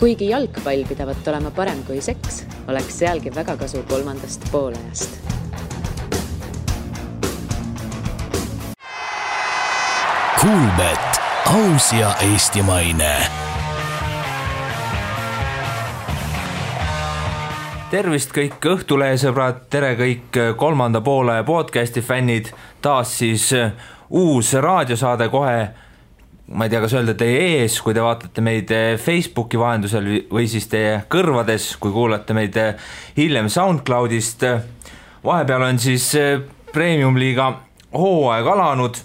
Kuigi jalgpall pidavat olema parem kui seks, oleks sealgi väga kasu kolmandast poolajast. Kuulbet, aus ja eestimaine. Tervist kõik Õhtulehe sõbrad, tere kõik kolmanda poole podcasti fännid. Taas siis uus raadiosaade kohe, ma ei tea, kas öelda teie ees, kui te vaatate meid Facebooki vahendusel või siis teie kõrvades, kui kuulate meid hiljem SoundCloudist. Vahepeal on siis Premium-liiga hooaeg alanud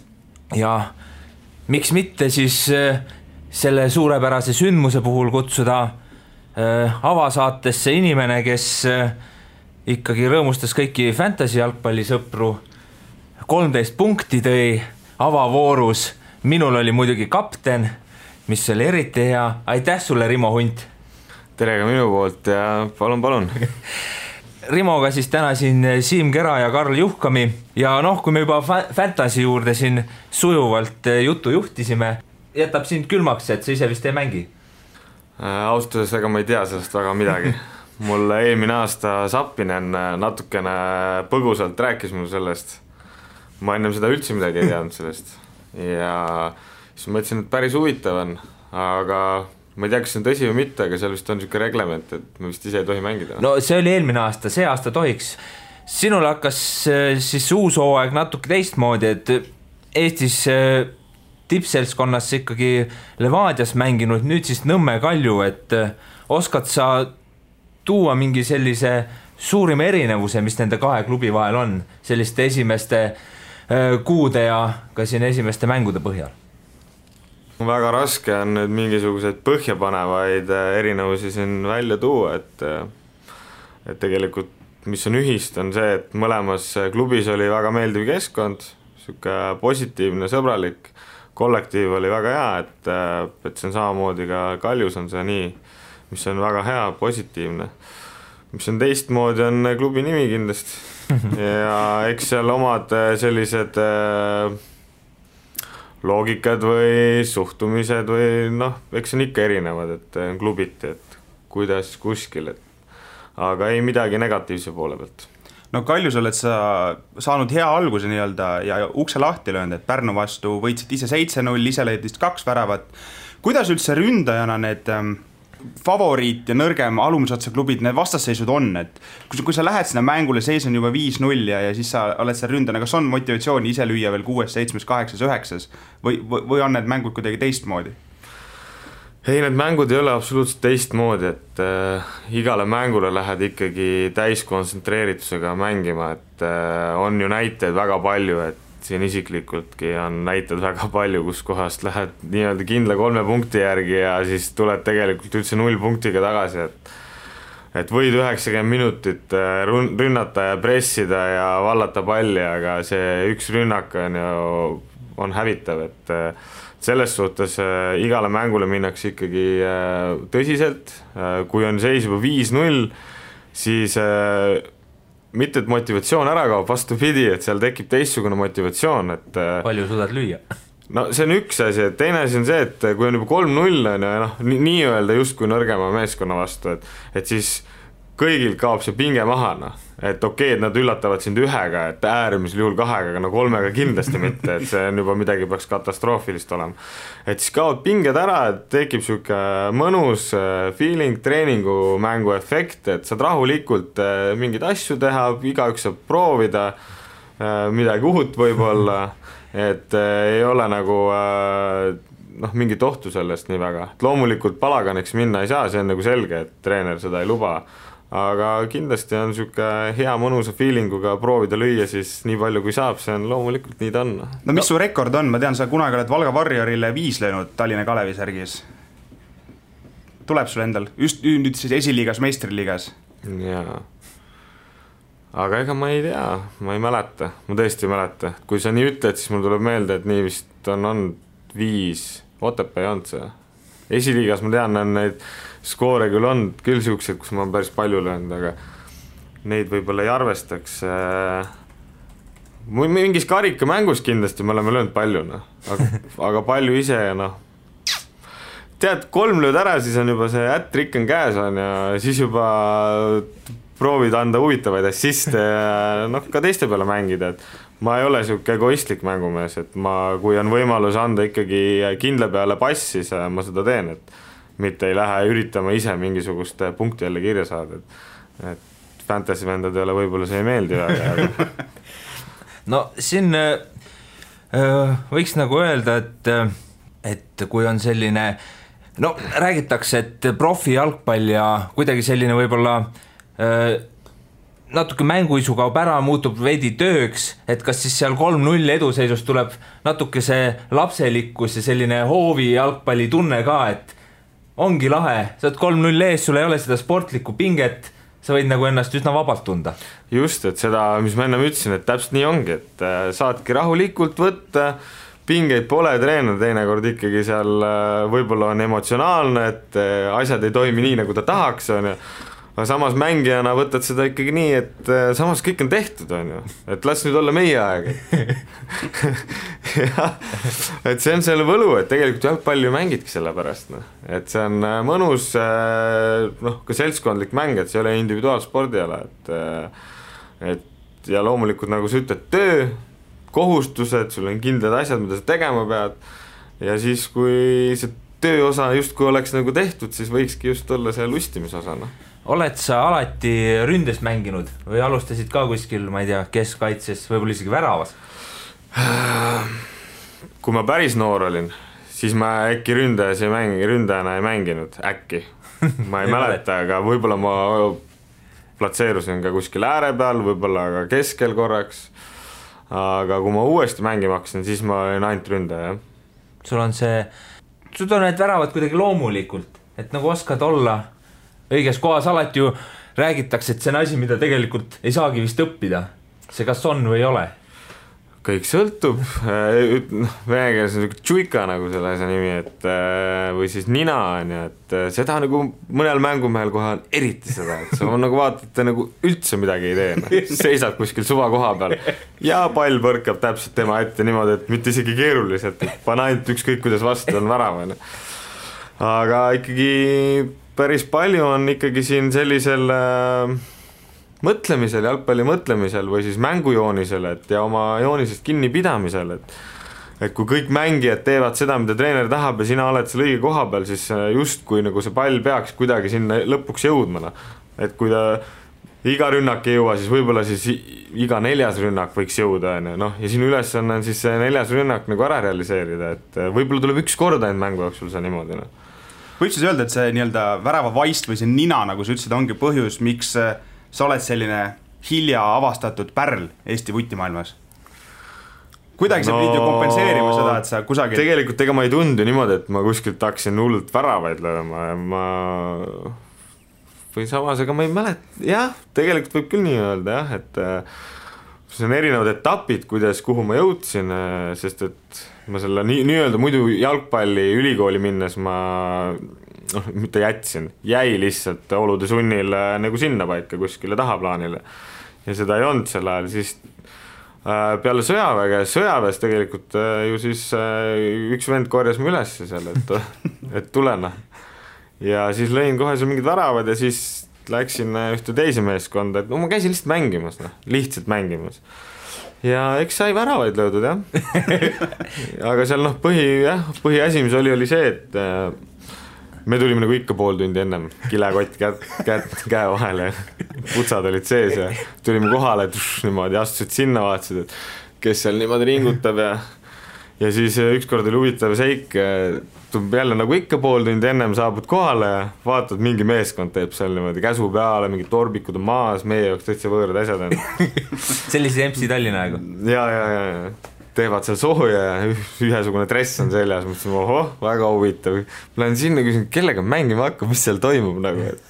ja miks mitte siis selle suurepärase sündmuse puhul kutsuda avasaatesse inimene, kes ikkagi rõõmustas kõiki fantasy jalgpallisõpru. 13 punkti tõi avavoorus. Minul oli muidugi kapten, mis oli eriti hea. Aitäh sulle, Rimo Hunt. Tere ka minu poolt ja palun. Rimoga siis täna siin Siim Kera ja Karl Juhkami. Ja kui me juba fantasy juurde siin sujuvalt juttu juhtisime, jätab sind külmaks, et sa ise vist ei mängi? Austuseks ega ma ei tea sellest väga midagi. Mul eelmine aasta Sappinen natukene põgusalt rääkis mul sellest. Ma ennem seda üldse midagi ei teadnud sellest. Ja siis mõtlesin, et päris huvitav on, aga ma ei tea, kas see on tõsi või mitte, aga seal vist on niisugune reglement, et me vist ise ei tohi mängida. No see oli eelmine aasta, see aasta tohiks. Sinul hakkas siis uus hooaeg natuke teistmoodi, et Eestis tippseltskonnas ikkagi Levadias mänginud, nüüd siis Nõmme Kalju, et oskad sa tuua mingi sellise suurima erinevuse, mis nende kahe klubi vahel on, selliste esimeste kuude ja ka siin esimeste mängude põhjal? Väga raske on nüüd mingisuguseid põhjapanevaid erinevusi siin välja tuua, et tegelikult mis on ühist on see, et mõlemas klubis oli väga meeldiv keskkond, siuke positiivne, sõbralik, kollektiiv oli väga hea, et see on samamoodi ka Kaljus on see nii, mis on väga hea, positiivne. Mis on teistmoodi on klubi nimi kindlasti. Ja eks seal omad sellised loogikad või suhtumised või eks on ikka erinevad, et klubiti, et kuidas kuskil, aga ei midagi negatiivse poole pealt. No Kaljus oled sa saanud hea alguse nii-öelda ja ukse lahti löönud, et Pärnu vastu võitsid ise 7-0, ise leidist 2 väravat. Kuidas üldse ründajana need favoriit ja nõrgem alumisotsa klubid, need vastasseisud on, et kui sa lähed sinna mängule, seis on juba 5-0 ja siis sa oled seal ründana, kas on motivatsiooni ise lüüa veel 6, 7, 8, 9 või on need mängud kuidagi teistmoodi? Ei, need mängud ei ole absoluutselt teistmoodi, et igale mängule lähed ikkagi täiskontsentreeritusega mängima, et on ju näiteid väga palju, et siin isiklikultki on näited väga palju, kus kohast lähed nii-öelda kindla 3 punkti järgi ja siis tuled tegelikult üldse 0 punktiga tagasi, et võid 90 minutit rünnata ja pressida ja vallata palli, aga see üks rünnak on hävitav, et selles suhtes igale mängule minnakse ikkagi tõsiselt, kui on seis juba 5-0, siis mitte et motivatsioon ära kaob, vastupidi, et seal tekib teistsugune motivatsioon, et palju suudad lüüa? No see on üks asi, et teine asi on see, et kui on juba 3-0 nii öelda just kui nõrgema meeskonna vastu, et siis kõigil kaob see pinge maha, et okei, et nad üllatavad sind 1-ga, et äärmisel juhul 2-ga, aga 3-ga kindlasti mitte, et see on juba midagi peaks katastroofilist olema. Et siis kaob pinged ära, et tekib siuke mõnus feeling, treeningu mängu efekt, et saad rahulikult mingeid asju teha, igaüks saab proovida midagi uhut võib-olla, et ei ole nagu mingit ohtu sellest nii väga. Et loomulikult palaganiks minna ei saa, see on nagu selge, et treener seda ei luba. Aga kindlasti on siuke hea mõnusa feelinguga proovida lüüa siis nii palju kui saab, see on loomulikult nii ta on. No mis su rekord on? Ma tean, sa kunagi oled Valga Warriorile 5 löönud Tallinna Kalevi särgis. Tuleb sul endal? Just nüüd siis esiliigas, meistriliigas? Jaa. Aga ega ma ei tea, ma ei mäleta. Ma tõesti ei mäleta. Kui sa nii ütled, siis mul tuleb meelde, et nii vist on 5. Otepää ei olnud see. Esiliigas ma tean, on neid skoore küll on küll siuksed, kus ma olen päris palju löönud, aga neid võib-olla ei arvestaks. Mingis karikamängus kindlasti me oleme löönud palju, aga palju ise tead, 3 lööd ära, siis on juba see ätrik on käes on ja siis juba proovid anda huvitavaid assiste ja noh, ka teiste peale mängida, et ma ei ole siuke egoistlik mängumees, et kui on võimalus anda ikkagi kindla peale pass, siis ma seda teen, et mitte ei lähe üritama ise mingisugust punkti jälle kirja saada, et fantasy vendadele võib-olla see ei meeldi väga. No siin võiks nagu öelda, et kui on selline, no räägitakse, et profi jalgpall ja kuidagi selline võib-olla natuke mänguisu kaob ära, muutub veidi tööks, et kas siis seal 3-0 eduseisust tuleb natuke see lapselikkus ja selline hoovi jalgpalli tunne ka, et ongi lahe, sa oled 3-0 ees, sul ei ole seda sportlikku pinget, sa võid nagu ennast üsna vabalt tunda. Just, et seda, mis ma ennem ütlesin, et täpselt nii ongi, et saadki rahulikult võtta, pingeid pole, treener teinekord ikkagi seal võib-olla on emotsionaalne, et asjad ei toimi nii, nagu ta tahaks, on ju. Aga samas mängijana võtad seda ikkagi nii, et samas kõik on tehtud, on ju. Et las nüüd olla meie aeg. Ja, et see on selle võlu, et tegelikult jalgpalli ju mängidki selle pärast. No. Et see on mõnus ka seltskondlik mäng, et see ei ole individuaalspordiala. Ja loomulikult, nagu sa ütled, töö, kohustused, sul on kindlad asjad, mida sa tegema pead. Ja siis, kui see tööosa justkui oleks nagu tehtud, siis võikski just olla see lustimisosana. Oled sa alati ründes mänginud või alustasid ka kuskil, ma ei tea, keskkaitses, võib-olla isegi väravas? Kui ma päris noor olin, siis ma äkki ründajana ei mänginud, äkki. Ma ei mäleta, aga võib-olla ma platseerusin ka kuskil ääre peal, võib-olla ka keskel korraks. Aga kui ma uuesti mängima hakkasin, siis ma olin ainult ründaja. Sul on need väravad kuidagi loomulikult, et nagu oskad olla õiges kohas, alati ju räägitakse, et see on asi, mida tegelikult ei saagi vist õppida. See kas on või ei ole? Kõik sõltub. Venekeeles on tšuika nagu selle asja nimi, või siis nina on ja, et seda nagu mõnel mängumehel kohe on eriti seda, et sa on nagu vaatad, nagu üldse midagi ei tee. Seisab kuskil suva koha peal ja pall põrkab täpselt tema ette niimoodi, et mitte isegi keeruliselt, et pane ainult ükskõik, kuidas vastu on värav. Aga ikkagi päris palju on ikkagi siin sellisel mõtlemisel, jalgpalli mõtlemisel või siis mängujoonisel, et ja oma joonisest kinni pidamisel, et kui kõik mängijad teevad seda, mida treener tahab ja sina oled seal õige koha peal, siis just kui nagu see pall peaks kuidagi sinna lõpuks jõudma. Et kui ta iga rünnak ei jõua, siis võib-olla siis iga 4. rünnak võiks jõuda. No, ja sinu ülesanne on siis see 4. rünnak nagu ära realiseerida, et võib-olla tuleb üks kord ainult mängu jooksul see niimoodi. Võid siis öelda, et see nii-öelda värava vaist või see nina, nagu sa ütlesid, ongi põhjus, miks sa oled selline hilja avastatud pärl Eesti vutimaailmas? Kuidagi sa pidid ju kompenseerima seda, et sa kusagil... Tegelikult ega ma ei tundu niimoodi, et ma kuskilt hakkasin hullult väravaid lööma. Või samas, ega ma ei mälet... Jah, tegelikult võib küll nii öelda, jah, et see on erinevad etapid, kuhu ma jõudsin, sest et ma selle nii-öelda muidu jalgpalli ülikooli minnes ma mitte jäi lihtsalt olude sunnil nagu sinna paika kuskile tahaplaanile ja seda ei olnud sel ajal, siis peale sõjaväes tegelikult ju siis üks vend korjas mu üles seal, et tulena ja siis lõin kohe seal mingid väravad ja siis läksin ühte teise meeskonda, et ma käisin lihtsalt mängimas ja eks sai väravaid löödud, jah. Aga seal põhiasi, mis oli see, et me tulime nagu ikka pool tundi ennem kilekott käe vahele ja putsad olid sees ja tulime kohale, niimoodi astusid sinna, vaatasid, et kes seal niimoodi ringutab ja siis ükskord oli huvitav seik, jälle nagu ikka pool tundi ennem saabud kohale ja vaatad, mingi meeskond teeb seal niimoodi käsu peale, mingid torbikud on maas, meie jaoks täitsa võõrad asjad on. Sellise MC Tallinna aegu. Ja teevad seal sooja ja ühesugune dress on seljas, mõtlesin, ohoh, väga huvitav. Ma lähen sinna küsin, kellega mängima hakkab, mis seal toimub nagu, et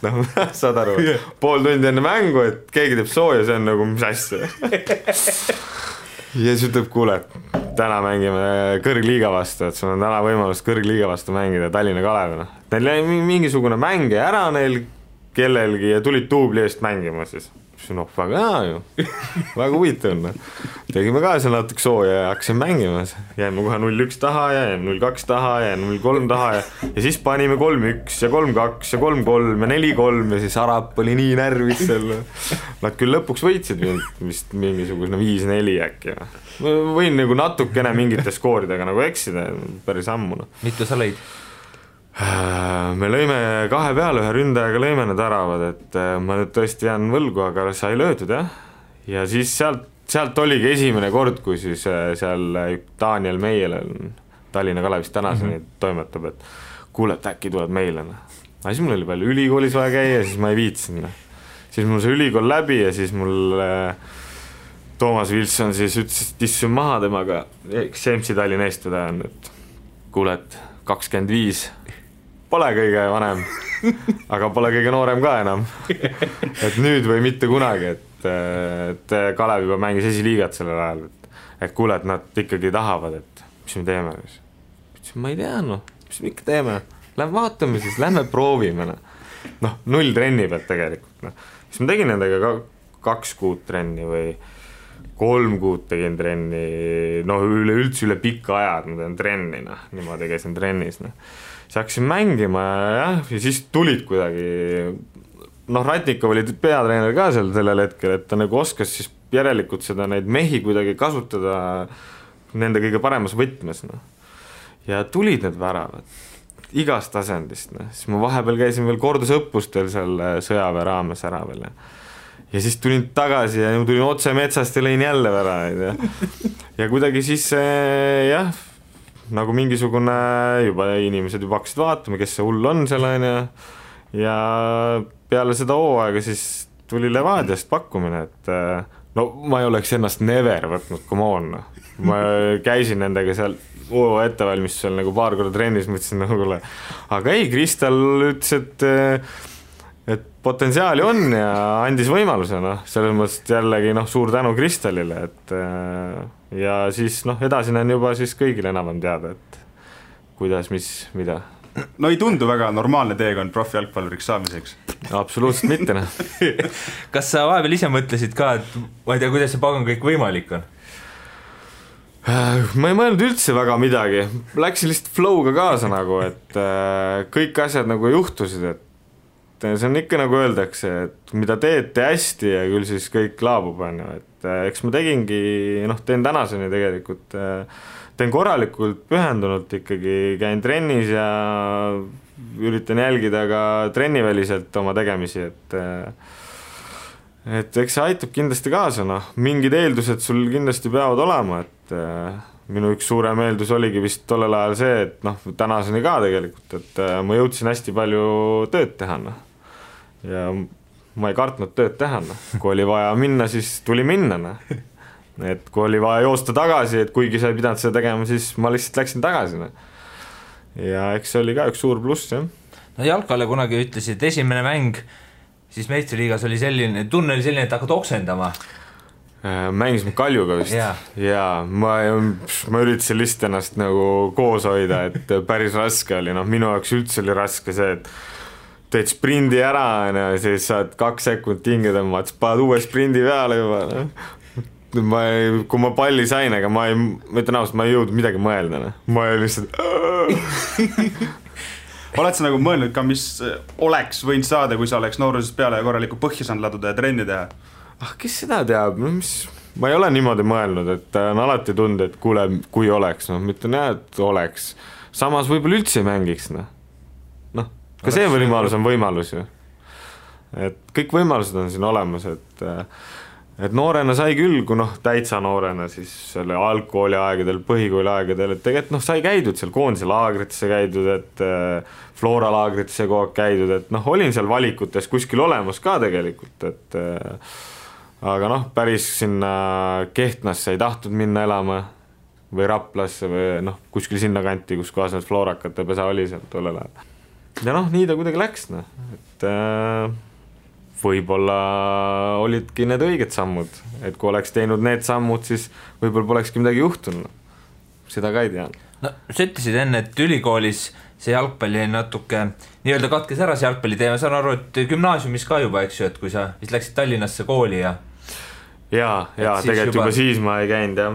saad aru, pool tundi enne mängu, et keegi teeb sooja, see on nagu mis asja. Ja siis ütleb, kuule, täna mängime kõrgliiga vastu, et sul on täna võimalus kõrgliiga vastu mängida Tallinna Kalevina. Neil jäi mingisugune mäng ära neil kellelgi ja tulid duubli eest mängima siis. noh, väga hea ju, väga huvitav on. Tegime ka seal natuke sooja ja hakkasime mängima, jäime kohe 0-1 taha ja jäime 0-2 taha ja 0-3 taha ja siis panime 3-1 ja 3-2 ja 3-3 ja 4-3 ja siis Arap oli nii närvis seal. Nad küll lõpuks võitsid vist mingisugune 5-4 äkki. Ma võin nagu natukene mingite skooridega nagu eksida, päris ammu. Mitu sa lõid? Me lõime 2 peale, 1 ründajaga lõime need äravad, et ma nüüd tõesti jään võlgu, aga sai löödud jah. Ja siis sealt oligi esimene kord, kui siis seal Daniel Meiel Tallinna Kalevist tänaseni toimetab, et kuule, et äkki tuleb meile. Aga siis mul oli palju ülikoolis vaja käia, siis ma ei viitsin. Siis mul see ülikool läbi ja siis mul Toomas Wilson siis ütles, et issun maha temaga, Semsi Tallinna eestvedaja on, et kuule, et 25 pole kõige vanem, aga pole kõige noorem ka enam. Et nüüd või mitte kunagi, et Kalev juba mängis esiliigat sellel ajal, et kuule, et nad ikkagi tahavad, et mis me teeme. Ma ei tea, mis me ikka teeme, lähme vaatame siis, lähme proovime. 0 trenni pealt tegelikult. Siis ma tegin nendega 2 kuud trenni või 3 kuud tegin trenni, üle pikka ajad ma teen trenni, niimoodi käisin trennis. Siis hakkasin mängima ja siis tulid kuidagi, Ratnikov oli peatreener ka sellel hetkel, et ta nagu oskas siis järelikult seda neid mehi kuidagi kasutada nende kõige paremas võtmes. Ja tulid need väravad igast tasandist. Siis ma vahepeal käisin veel kordusõppustel seal sõjaväe raames ära veel. Ja siis tulin tagasi ja tulin otse metsast ja lõin jälle väravaid. Ja kuidagi siis jah, nagu mingisugune juba inimesed juba hakkasid vaatama, kes see hull on seal ja peale seda hooaega siis tuli Levadiast pakkumine, et ma ei oleks ennast never võtnud, come on. Ma käisin nendega seal ettevalmistusel nagu paar korda trennis, mõtlesin nagu, aga ei, Kristal ütles, et potentsiaali on ja andis võimaluse, selles mõttes jällegi suur tänu Kristalile, et ja siis edasi on juba siis kõigile enam teada, et kuidas, mis, mida. No ei tundu väga normaalne teekond profijalgpalluriks saamiseks. Absoluutselt mitte. Kas sa vahepeal ise mõtlesid ka, et ma ei tea, kuidas see pagan kõik võimalik on? Ma ei mõelnud üldse väga midagi. Läksin lihtsalt flow'ga kaasa nagu, et kõik asjad nagu juhtusid, et see on ikka nagu öeldakse, et mida teete hästi ja küll siis kõik laabub, et eks ma tegingi, teen tänaseni tegelikult, teen korralikult pühendunult ikkagi, käin trennis ja üritan jälgida ka trenniväliselt oma tegemisi, et eks see aitab kindlasti kaasa, mingid eeldused sul kindlasti peavad olema, et minu üks suurem eeldus oligi vist tollel ajal see, et tänaseni ka tegelikult, et ma jõudsin hästi palju tööd teha, ja ma ei kartnud tööd teha, kui oli vaja minna, siis tuli minna, et kui oli vaja joosta tagasi, et kuigi sa ei pidanud seda tegema, siis ma lihtsalt läksin tagasi, ja eks see oli ka üks suur pluss, jah. Jalkale kunagi ütlesid, esimene mäng siis meistriliigas oli selline, tunne oli selline, et hakkad oksendama. Mängisime Kaljuga vist ja ma üritasin lihtsalt ennast nagu koos hoida, et päris raske oli, minu jaoks üldse oli raske see, et teed sprindi ära ja siis saad 2 sekundit hinge tõmmad, paned uue sprindi peale juba. Kui ma palli sain, aga ma ütlen ausalt, ma ei jõudnud midagi mõelda. Ma ei lihtsalt... Oled sa nagu mõelnud ka, mis oleks võinud saada, kui sa oleks noorusest peale korraliku põhja saanud laduda ja trenni teha? Kes seda teab? Ma ei ole niimoodi mõelnud, et on alati tund, et kuule, kui oleks. Ma ütlen jah, et oleks. Samas võib-olla üldse ei mängiks. Ka see võimalus on võimalus ju. Et kõik võimalused on siin olemas, et noorena sai küll, kui täitsa noorena siis selle algkooli aegadel, põhikooli aegadel, et tegelikult sai käidud seal koondise laagritesse käidud, et Flora laagritesse kogu aeg käidud, et olin seal valikutes kuskil olemas ka tegelikult, et aga päris sinna Kehtnasse ei tahtnud minna elama või Raplasse või kuskil sinna kanti, kus kohas need Florakate pesa oli seal tollel ajal. Ja nii ta kuidagi läks, et võib-olla olidki need õiged sammud, et kui oleks teinud need sammud, siis võib-olla polekski midagi juhtunud. Seda ka ei tea. no sa ütlesid enne, et ülikoolis see jalgpalli natuke nii-öelda katkes ära see jalgpalli teema, saan aru, et gümnaasiumis ka juba, eks ju, et kui sa vist läksid Tallinnasse kooli ja tegelikult juba siis ma ei käinud jah.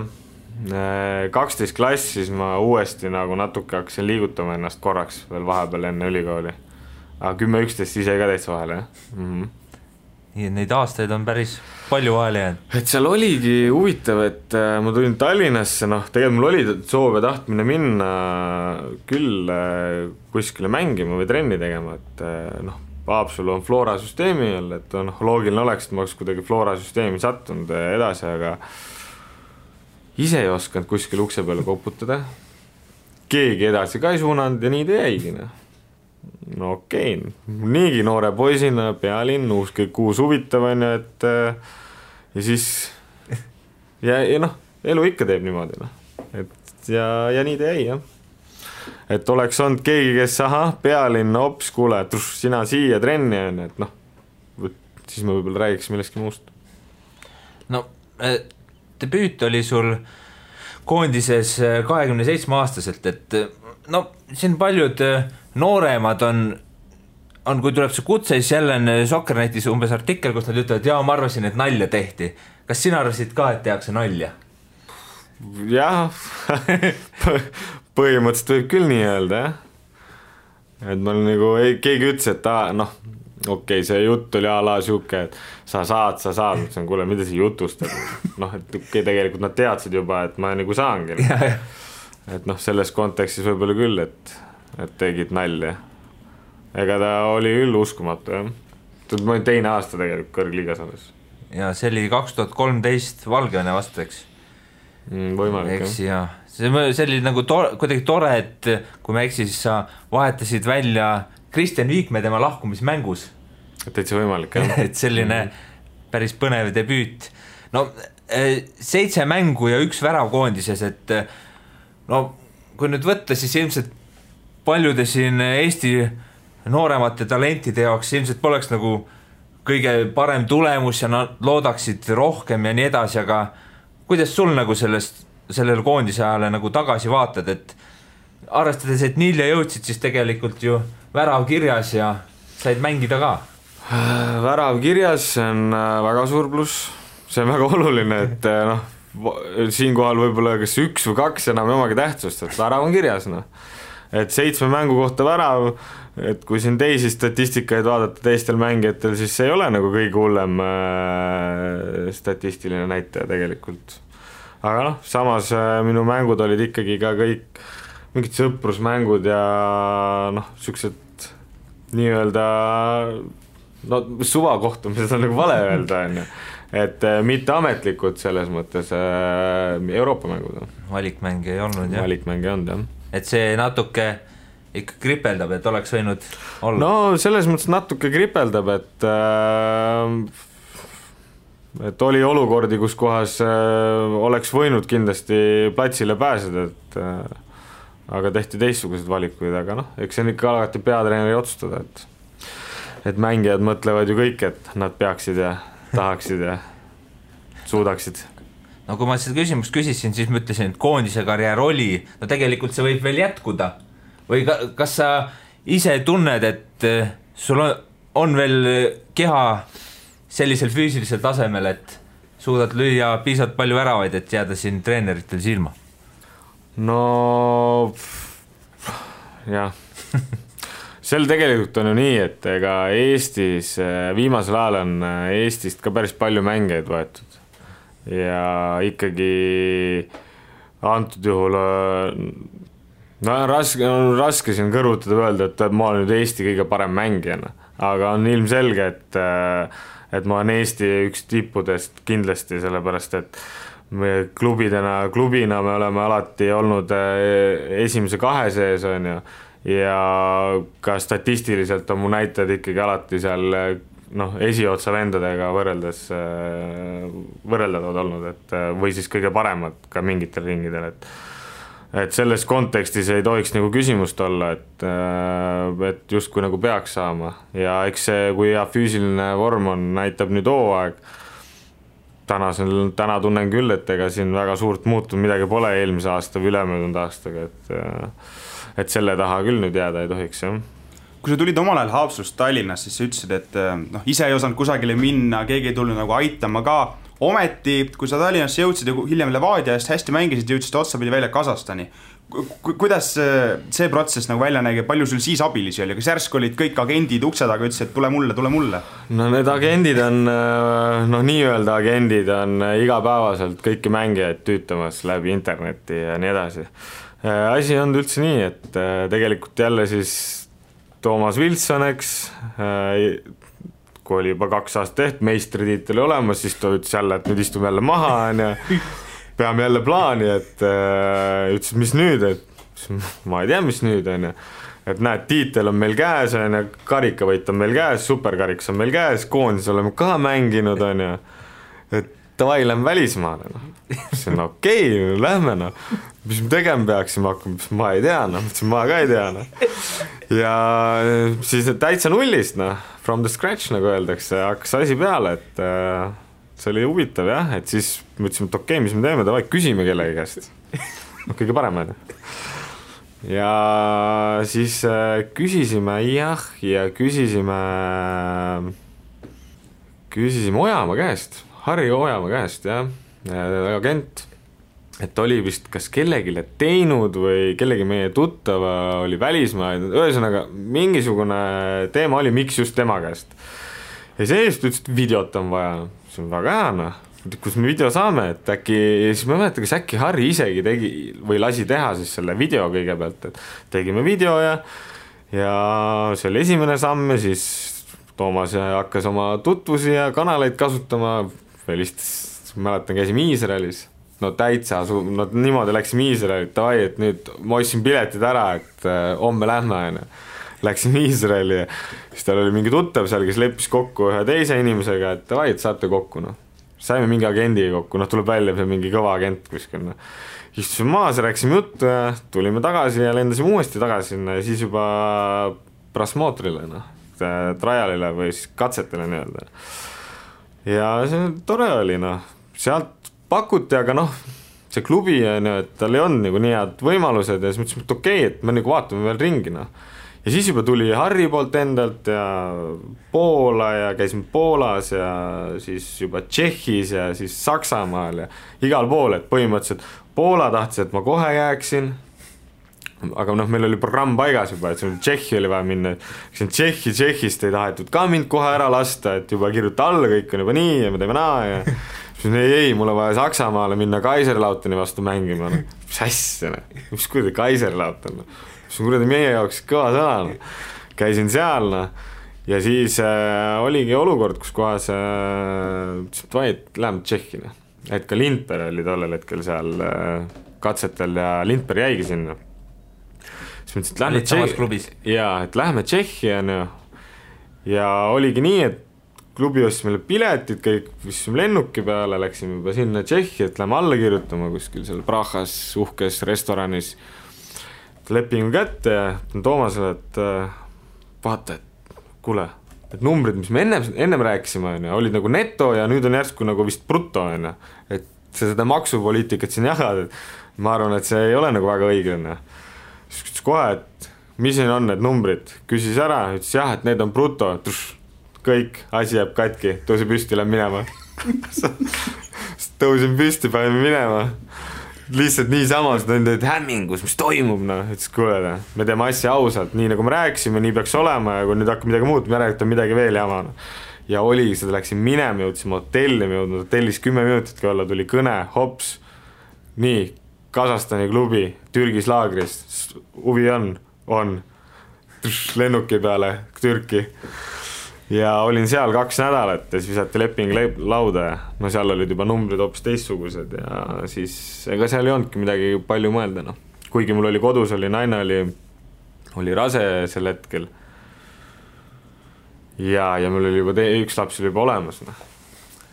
12 klass, siis ma uuesti nagu natuke hakkasin liigutama ennast korraks veel vahepeal enne ülikooli. Aga 10-11 ise ka täitsa vahele jah. Nii et neid aastaid on päris palju vahele jäänud. Et seal oligi huvitav, et ma tulin Tallinnasse, tegelikult mul oli soov ja tahtmine minna küll kuskile mängima või trenni tegema, et Haapsalu on Flora süsteemi all, et loogiline oleks, et ma oleks kuidagi Flora süsteemi sattunud edasi, aga ise ei osanud kuskil ukse peale koputada. Keegi edasi ka ei suunanud ja nii ta jäigi. No okei, niigi noore poisina, pealinn, kõik uus huvitav on, et ja siis ja elu ikka teeb niimoodi. Et ja nii ta jäi jah. Et oleks olnud keegi, kes pealinn, hops, kuule, sina siia trenni on, et siis ma võib-olla räägiks millestki muust. No, debüüt oli sul koondises 27-aastaselt, et siin paljud nooremad on, kui tuleb see kutse, siis jälle on Soccernetis umbes artikkel, kus nad ütlevad, jaa, ma arvasin, et nalja tehti. Kas sina arvasid ka, et tehakse nalja? Jah, põhimõtteliselt võib küll nii öelda, jah. Et ma nagu, keegi ütles, et okei, see jutt oli siuke, et sa saad, mõtlesin, kuule, mida see jutust, et tegelikult nad teadsid juba, et ma nagu saangi. Et selles kontekstis võib-olla küll, et tegid nalja. Ega ta oli küll uskumatu, jah. Ma olin teine aasta tegelikult kõrgliigas alles. Ja see oli 2013 Valgevene vastu, eks? Võimalik, jah. See oli nagu kuidagi tore, et kui ma eksin, siis sa vahetasid välja Kristjan Viikme tema lahkumismängus. Täitsa võimalik, jah. Et selline päris põnev debüüt. 7 mängu ja 1 värav koondises, et kui nüüd võtta, siis ilmselt paljude siin Eesti nooremate talentide jaoks ilmselt poleks nagu kõige parem tulemus ja nad loodaksid rohkem ja nii edasi, aga kuidas sul nagu sellele koondise ajale nagu tagasi vaatad, et arvestades, et nii jõudsid, siis tegelikult ju värav kirjas ja said mängida ka? Värav kirjas on väga suur pluss, see on väga oluline, et siinkohal võib-olla kas 1 või 2 enam omagi tähtsust, et värav on kirjas, et 7 mängu kohta värav, et kui siin teisi statistikaid vaadata teistel mängijatel, siis see ei ole nagu kõige hullem statistiline näitaja tegelikult. Aga samas minu mängud olid ikkagi ka kõik mingid sõprusmängud ja siuksed nii-öelda suvakohtumised on nagu vale öelda, et mitte ametlikud selles mõttes Euroopa mängud. Valikmänge ei olnud, jah? Valikmänge ei olnud, jah. Et see natuke ikka kripeldab, et oleks võinud olla? Selles mõttes natuke kripeldab, et oli olukordi, kus kohas oleks võinud kindlasti platsile pääseda, aga tehti teistsugused valikuid, aga eks see on ikka alati peatreeneri otsustada, et mängijad mõtlevad ju kõik, et nad peaksid ja tahaksid ja suudaksid. Kui ma seda küsimust küsisin, siis ma ütlesin, et koondise karjäär oli, tegelikult see võib veel jätkuda. Või kas sa ise tunned, et sul on veel keha sellisel füüsilisel tasemel, et suudad lüüa piisavalt palju väravaid, et jääda siin treeneritel silma? Jah. Sel tegelikult on ju nii, et ega Eestis viimasel ajal on Eestist ka päris palju mängeid võetud. Ja ikkagi antud juhul raske siin kõrvutada öelda, et ma olen nüüd Eesti kõige parem mängijana, aga on ilmselge, et ma olen Eesti üks tippudest kindlasti, sellepärast et me klubina me oleme alati olnud esimese 2 sees on ju, ja ka statistiliselt on mu näitajad ikkagi alati seal esiotsa vendadega võrreldavad olnud, et või siis kõige paremad ka mingitel ringidel, et selles kontekstis ei tohiks nagu küsimust olla, et just kui nagu peaks saama ja eks see, kui hea füüsiline vorm on, näitab nüüd hooaeg, täna tunnen küll, et ega siin väga suurt muutunud midagi pole eelmise aasta või ülemöödunud aastaga, et selle taha küll nüüd jääda ei tohiks, jah. Kui sa tulid omal ajal Haapsalust Tallinnas, siis sa ütlesid, et ise ei osanud kusagile minna, keegi ei tulnud nagu aitama ka. Ometi, kui sa Tallinnasse jõudsid ja hiljem Levadia eest hästi mängisid, jõudsid otsapidi välja Kasahstani. Kuidas see protsess nagu välja nägi, palju sul siis abilisi oli? Kas järsk olid kõik agendid ukse taga, ütlesid, et tule mulle? No need agendid on, nii-öelda agendid on igapäevaselt kõiki mängijaid tüütamas läbi interneti ja nii edasi. Asi on üldse nii, et tegelikult jälle siis Toomas Wilson, eks, kui oli juba 2 aastat tehtud, meistritiitel olemas, siis ta ütles jälle, et nüüd istume jälle maha ja peame jälle plaani, et ütles, mis nüüd, et ma ei tea, mis nüüd on, et näed, tiitel on meil käes, karikavõit on meil käes, superkariks on meil käes, koondis oleme ka mänginud, et davai, lähme välismaale, see on okei, lähme, mis me tegema peaksime hakkama, ma ei tea, ma ka ei tea, ja siis täitsa nullist, from the scratch, nagu öeldakse, hakkas asi peale, et see oli huvitav, jah, et siis mõtlesime, et okei, mis me teeme, davai, küsime kellegi käest, kõige parem, ja siis küsisime, jah, ja küsisime Ojamaa käest, Harri Ojamaa käest, jah, agent, et oli vist kas kellegile teinud või kellegi meie tuttava oli välismaa, ühesõnaga mingisugune teema oli, miks just tema käest. Ja seest ütles, et videot on vaja, see on väga hea, kus me video saame, et äkki, siis ma mäletan, kas äkki Harri isegi tegi või lasi teha siis selle video kõigepealt, et tegime video ja see oli esimene samm ja siis Toomas hakkas oma tutvusi ja kanaleid kasutama, mäletan, käisime Iisraelis, täitsa, niimoodi läksime Iisraeli, et nüüd ma ostsin piletid ära, et homme lähme, läksime Iisraeli ja siis tal oli mingi tuttav seal, kes leppis kokku ühe teise inimesega, et saate kokku, saime mingi agendiga kokku, tuleb välja see mingi kõva agent kuskil, istusime maas ja rääkisime juttu ja tulime tagasi ja lendasime uuesti tagasi sinna ja siis juba prasmootorile, trialile või siis katsetele nii-öelda. Ja see tore oli, sealt pakuti, aga see klubi, et tal ei olnud nagu nii head võimalused ja siis mõtlesime, et okei, et me nagu vaatame veel ringi, Ja siis juba tuli Harri poolt endalt ja Poola ja käisime Poolas ja siis juba Tšehhis ja siis Saksamaal ja igal pool, et põhimõtteliselt Poola tahtis, et ma kohe jääksin, aga meil oli programm paigas juba, et Tšehhi oli vaja minna, Tšehhist ei tahetud ka mind kohe ära lasta, et juba kirjuta alla, kõik on juba nii ja me teeme naa ja siis ei, mul on vaja Saksamaale minna Kaiserlauteni vastu mängima, mis asja, mis kuradi Kaiserlauten, see on kuradi meie jaoks kõva sõna, käisin seal ja siis oligi olukord, kus kohas läheme Tšehhi, et ka Lindberg oli tollel hetkel seal katsetel ja Lindberg jäigi sinna. Siis mõtlesin, et lähme Tšehhi ja oligi nii, et klubi ostis meile piletid, kõik visime lennuki peale, läksime juba sinna Tšehhi, et lähme alla kirjutama kuskil seal Prahas uhkes restoranis lepingu kätte ja Toomasele, et vaata, et kuule, et numbrid, mis me ennem rääkisime, olid nagu neto ja nüüd on järsku nagu vist bruto, et seda maksupoliitikat siin jagad, et ma arvan, et see ei ole nagu väga õige. Siis küsis kohe, et mis siin on need numbrid, küsis ära, ütles jah, et need on bruto, kõik, asi jääb katki, tõusi püsti, lähen minema. Tõusin püsti, panime minema. Lihtsalt nii samas, et hämmingus, mis toimub, ütles kuule, me teeme asja ausalt, nii nagu me rääkisime, nii peaks olema ja kui nüüd hakkab midagi muud, me räägime midagi veel jama. Ja oli, seda läksin minema, jõudsime hotelli, hotellis 10 minutitki olla, tuli kõne, hops, nii, Kasahstani klubi, Türgis laagris, huvi on, lennuki peale, Türki. Ja olin seal 2 nädalat ja siis visati leping lauda ja seal olid juba numbrid hoopis teistsugused ja siis ega seal ei olnudki midagi palju mõelda. Kuigi mul oli kodus, naine oli rase sel hetkel ja mul oli juba üks laps oli juba olemas.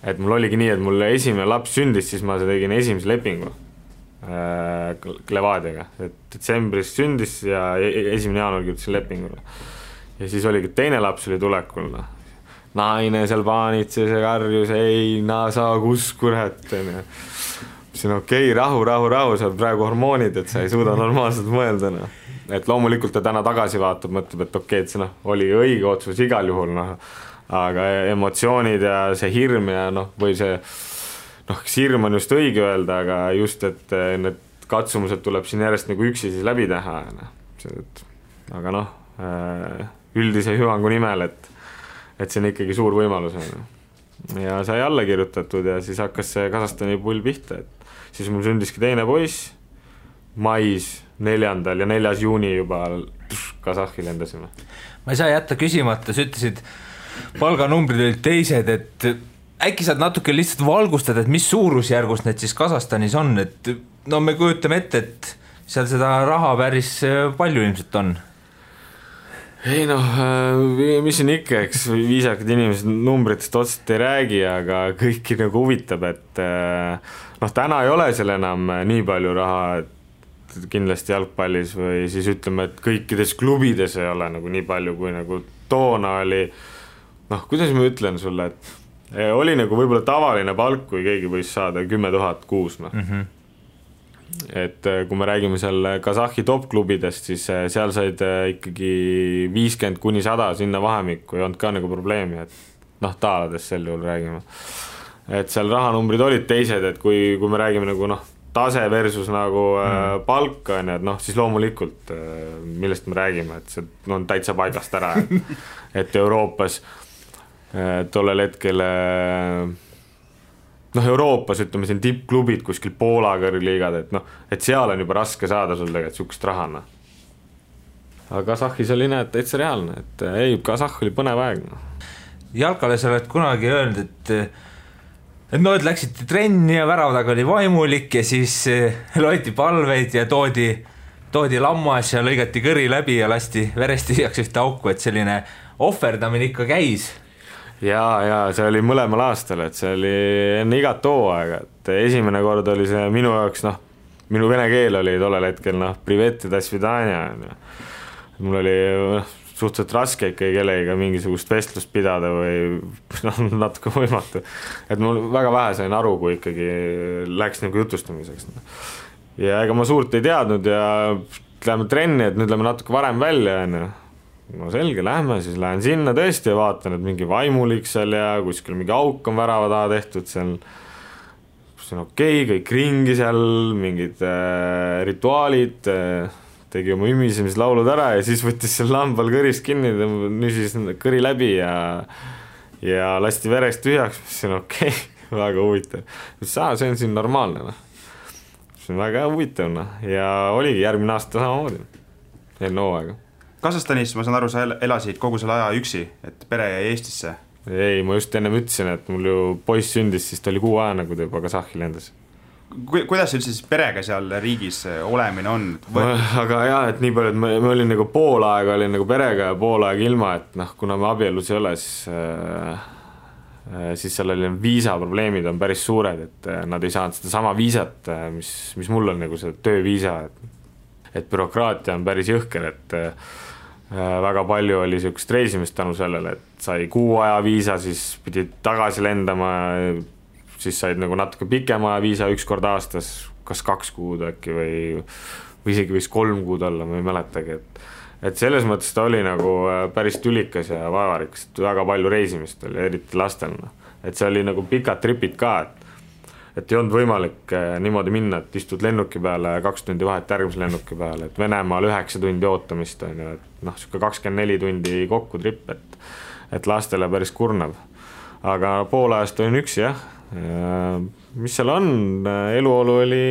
Et mul oligi nii, et mul esimene laps sündis, siis ma tegin esimese lepingu Levadiaga. Et detsembris sündis ja 1. jaanuar kirjutasin lepingule. Ja siis oligi teine laps oli tulekul. naine seal paanitses ja karjus, ei, sa kus kurat, onju. siin okei, rahu, sa oled praegu hormoonid, et sa ei suuda normaalselt mõelda, noh. Et loomulikult ta täna tagasi vaatab, mõtleb, et okei, et see oli õige otsus igal juhul, noh. Aga emotsioonid ja see hirm ja või see, hirm on just õige öelda, aga just, et need katsumused tuleb siin järjest nagu üksi siis läbi teha, aga üldise hüvangu nimel, et see on ikkagi suur võimalus, ja sai alla kirjutatud ja siis hakkas see Kasahstani pull pihta, et siis mul sündiski teine poiss mais 4. ja 4. juuni juba Kasahhi lendasime. Ma ei saa jätta küsimata, sa ütlesid, palganumbrid olid teised, et äkki saad natuke lihtsalt valgustada, et mis suurusjärgus need siis Kasahstanis on, et me kujutame ette, et seal seda raha päris palju ilmselt on. Ei mis siin ikka, eks viisakad inimesed numbritest otseselt ei räägi, aga kõiki nagu huvitab, et täna ei ole seal enam nii palju raha, et kindlasti jalgpallis või siis ütleme, et kõikides klubides ei ole nagu nii palju, kui nagu toona oli, kuidas ma ütlen sulle, et oli nagu võib-olla tavaline palk, kui keegi võis saada 10 000 kuus, Et kui me räägime seal Kasahhi top-klubidest, siis seal said ikkagi 50–100 sinna vahemikku, ei olnud ka nagu probleemi, et taaladest sel juhul räägime. Et seal rahanumbrid olid teised, et kui me räägime nagu tase versus nagu palk, et siis loomulikult, millest me räägime, et see on täitsa paigast ära, et Euroopas tollel hetkel Euroopas, ütleme siin tippklubid kuskil Poola kõrgliigad, et seal on juba raske saada sul tegelikult sukust rahana. Aga Kasahhis oli täitsa reaalne, et ei, Kasahh oli põnev aeg. Jalkale sa oled kunagi öelnud, et läksite trenni ja väravaga oli vaimulik ja siis loeti palveid ja toodi lammas ja lõigati kõri läbi ja lasti verest tühjaks ühte auku, et selline ohverdamine ikka käis. Ja see oli mõlemal aastal, et see oli enne igat hooaega, et esimene kord oli see minu jaoks, minu vene keel oli tollel hetkel, privet ja dasvidania. Mul oli suhteliselt raske ikkagi kellega mingisugust vestlust pidada või natuke võimatu. Et mul väga vähe sain aru, kui ikkagi läks nagu jutustamiseks. Ja ega ma suurt ei teadnud ja läheme trenni, et nüüd läheme natuke varem välja, selge, lähme, siis lähen sinna tõesti ja vaatan, et mingi vaimulik seal ja kuskil mingi auk on värava taha tehtud, seal on okei, kõik ringi seal, mingid rituaalid, tegi oma ümisemislaulud ära ja siis võttis seal lambal kõrist kinni, nüsis kõri läbi ja lasti verest tühjaks, see on okei, väga huvitav. See on siin normaalne, see on väga huvitav ja oligi järgmine aasta samamoodi, enne hooaega. Kasahstanis, ma saan aru, sa elasid kogu selle aja üksi, et pere jäi Eestisse? Ei, ma just ennem ütlesin, et mul ju poiss sündis, siis ta oli 6 aja, nagu ta juba Kasahhi lendas. Kuidas üldse siis perega seal riigis olemine on? Aga jah, et nii palju, et me olin nagu pool aega olin nagu perega ja pool aega ilma, et kuna me abielus ei ole, siis seal oli viisaprobleemid on päris suured, et nad ei saanud seda sama viisat, mis mul on nagu see tööviisa, et bürokraatia on päris jõhker, et väga palju oli sellist reisimist tänu sellele, et sai 6 aja viisa, siis pidid tagasi lendama, siis said nagu natuke pikema viisa 1 kord aastas, kas 2 kuud äkki või isegi võis 3 kuud olla, ma ei mäletagi, et selles mõttes ta oli nagu päris tülikas ja vaevarikas, et väga palju reisimist oli, eriti lastel, et see oli nagu pikad tripid ka, et ei olnud võimalik niimoodi minna, et istud lennuki peale 2 tundi vahet järgmise lennuki peale, et Venemaal 9 tundi ootamist on ju, et siuke 24 tundi kokku trip, et lastele päris kurnav. Aga pool ajast olin üksi, jah. Mis seal on? Eluolu oli,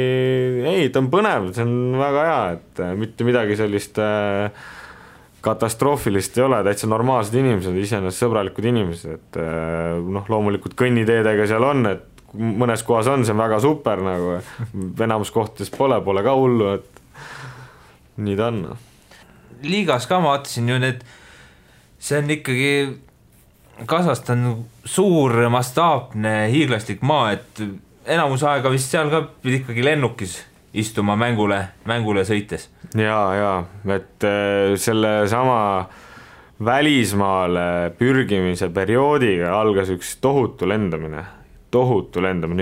ei, ta on põnev, see on väga hea, et mitte midagi sellist katastroofilist ei ole, täitsa normaalsed inimesed, iseenesest sõbralikud inimesed, et loomulikult kõnniteedega seal on, et mõnes kohas on, see on väga super, nagu enamus kohtades pole ka hullu, et nii ta on. Liigas ka ma vaatasin ju see on ikkagi Kasahstan suur mastaapne hiiglaslik maa, et enamus aega vist seal ka pidi ikkagi lennukis istuma mängule sõites. Ja, et selle sama välismaale pürgimise perioodiga algas üks tohutu lendamine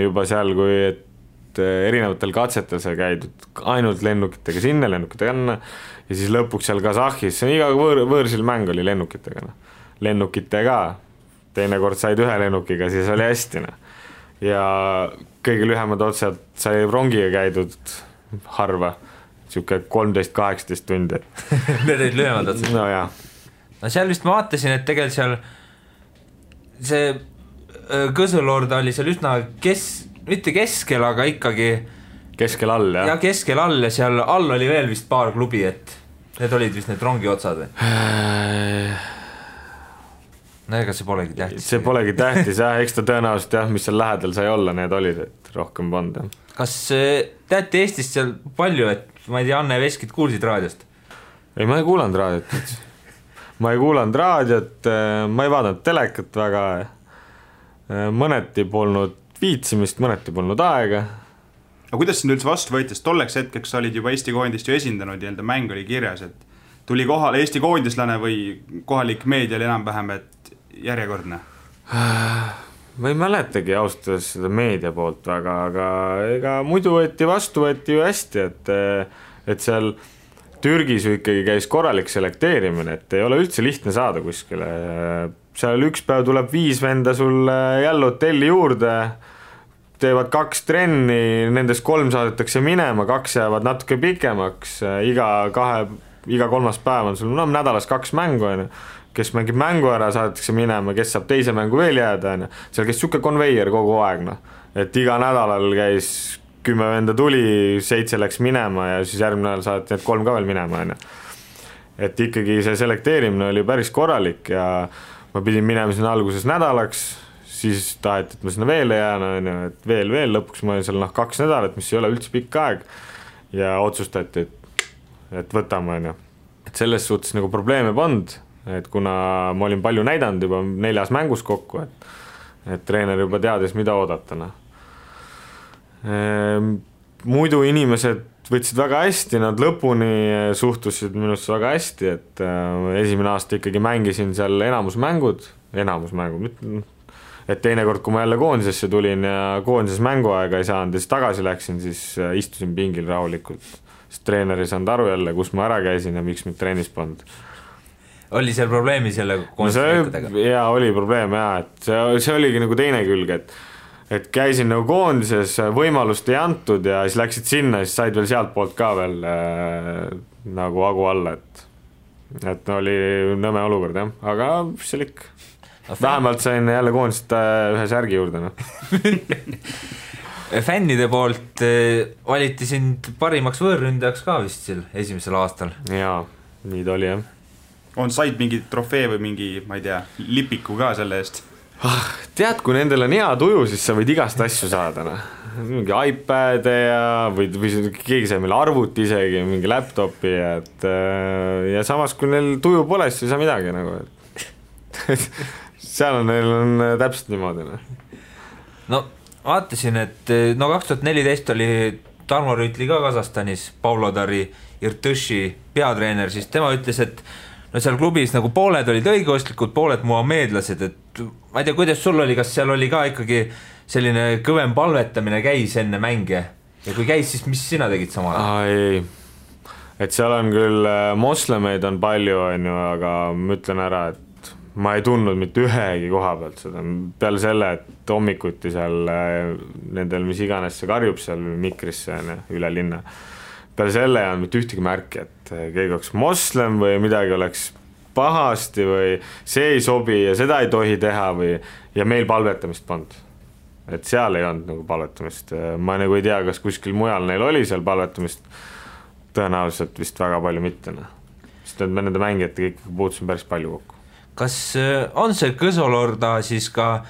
juba seal, kui et erinevatel katsetel sai käidud ainult lennukitega sinna, lennukitega anna ja siis lõpuks seal Kasahhis, see on iga võõrsil mäng oli lennukitega, teinekord said ühe lennukiga, siis oli hästi. Ja kõige lühemad otsad sai rongiga käidud harva, siuke 13-18 tundi. Need olid lühemad otsad? No jah. No seal vist ma vaatasin, et tegelikult seal see Kõsulord oli seal üsna mitte keskel, aga ikkagi keskel all, jah? Ja keskel all ja seal all oli veel vist paar klubi, et need olid vist need rongi otsad või? No ega see polegi tähtis. See polegi tähtis, jah, eks ta tõenäoliselt, jah, mis seal lähedal sai olla, need olid, et rohkem polnud, jah. Kas teate Eestist seal palju, et ma ei tea, Anne Veskit kuulsid raadiost? Ei, ma ei kuulanud raadiot. Ma ei vaadanud telekat väga. Mõneti polnud viitsimist, mõneti polnud aega. Aga kuidas sind üldse vastu võitis? Tolleks hetkeks olid juba Eesti koondist ju esindanud ja mäng oli kirjas, et tuli kohale Eesti koondislane või kohalik meedia oli enam-vähem, et järjekordne? Ma ei mäletagi austas seda meedia poolt väga, aga ega muidu vastu võeti ju hästi, et seal Türgis ju ikkagi käis korralik selekteerimine, et ei ole üldse lihtne saada kuskile. Seal üks päev tuleb 5 venda sulle jälle hotelli juurde, teevad 2 trenni, nendest 3 saadetakse minema, 2 jäävad natuke pikemaks, iga 3. päev on sul nädalas 2 mängu, kes mängib mängu ära, saadetakse minema, kes saab teise mängu veel jääda, seal käis siuke konveier kogu aeg, et iga nädalal käis 10 venda tuli, 7 läks minema ja siis järgmine nädal saadeti need 3 ka veel minema, et ikkagi see selekteerimine oli päris korralik ja ma pidin minema sinna alguses nädalaks, siis taheti, et ma sinna veel jään, et veel, lõpuks ma olin seal 2 nädalat, mis ei ole üldse pikk aeg ja otsustati, et võtame, et selles suhtes nagu probleeme polnud, et kuna ma olin palju näidanud juba 4 mängus kokku, et treener juba teadis, mida oodatana. Muidu inimesed võtsid väga hästi, nad lõpuni suhtusid minusse väga hästi, et esimene aasta ikkagi mängisin seal enamusmängud, et teinekord, kui ma jälle koondisesse tulin ja koondises mänguaega ei saanud ja siis tagasi läksin, siis istusin pingil rahulikult, sest treener ei saanud aru jälle, kus ma ära käisin ja miks mind trennis polnud. Oli seal probleemi selle koondismängudega? Jaa, oli probleem, jaa, et see oligi nagu teine külg, et käisin nagu koondises, võimalust ei antud ja siis läksid sinna, siis said veel sealt poolt ka veel nagu hagu alla, et oli nõme olukord, jah, aga mis seal ikka. Vähemalt sain jälle koondist ühe särgi juurde. Fännide poolt valiti sind parimaks võõrründajaks ka vist seal esimesel aastal. Jaa, nii ta oli, jah. On said mingi trofee või mingi, ma ei tea, lipiku ka selle eest? Tead, kui nendel on hea tuju, siis sa võid igast asju saada. Mingi iPad või keegi sai meil arvuti isegi, mingi laptopi, ja samas kui neil tuju pole, siis ei saa midagi nagu. Seal neil on täpselt niimoodi. No vaatasin, et 2014 oli Tarmo Rüütli ka Kasahstanis, Pavlodari Irtõši peatreener, siis tema ütles, et seal klubis nagu pooled olid õigeostlikud, pooled muhameedlased, et ma ei tea, kuidas sul oli, kas seal oli ka ikkagi selline kõvem palvetamine käis enne mänge ja kui käis, siis mis sina tegid samal? Ei, et seal on küll moslemeid on palju, aga ma ütlen ära, et ma ei tundnud mitte ühegi koha pealt seda, peale selle, et hommikuti seal nendel, mis iganes see karjub seal mikrisse üle linna, peale selle on mitte ühtegi märki, et keegi oleks moslem või midagi oleks pahasti või see ei sobi ja seda ei tohi teha ja meil palvetamist polnud. Et seal ei olnud nagu palvetamist. Ma nagu ei tea, kas kuskil mujal neil oli seal palvetamist, tõenäoliselt vist väga palju mitte. Sest me nende mängijatega ikkagi puutusin päris palju kokku. Kas on see Kõsolorda siis ka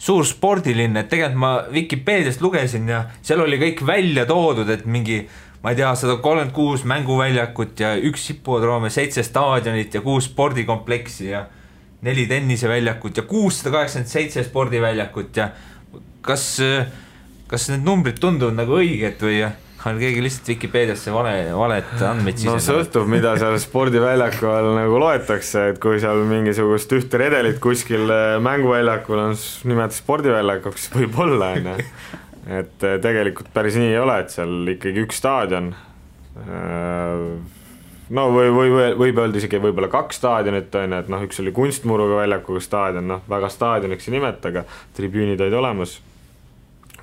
suur spordiline, et tegelikult ma Wikipeediast lugesin ja seal oli kõik välja toodud, et mingi ma ei tea, 136 mänguväljakut ja 1 hipodroom ja 7 staadionit ja 6 spordikompleksi ja 4 tenniseväljakut ja 687 spordiväljakut ja kas need numbrid tunduvad nagu õiged või on keegi lihtsalt Vikipeediasse valet andmeid no sõltub, mida seal spordiväljaku all nagu loetakse, et kui seal mingisugust ühte redelit kuskil mänguväljakul on nimetada spordiväljakuks, võib olla, et tegelikult päris nii ei ole, et seal ikkagi üks staadion, no võib öelda isegi võib-olla 2 staadionit, et noh, üks oli kunstmuruga väljakuga staadion, noh, väga staadioniks ei nimeta, aga tribüünid olid olemas,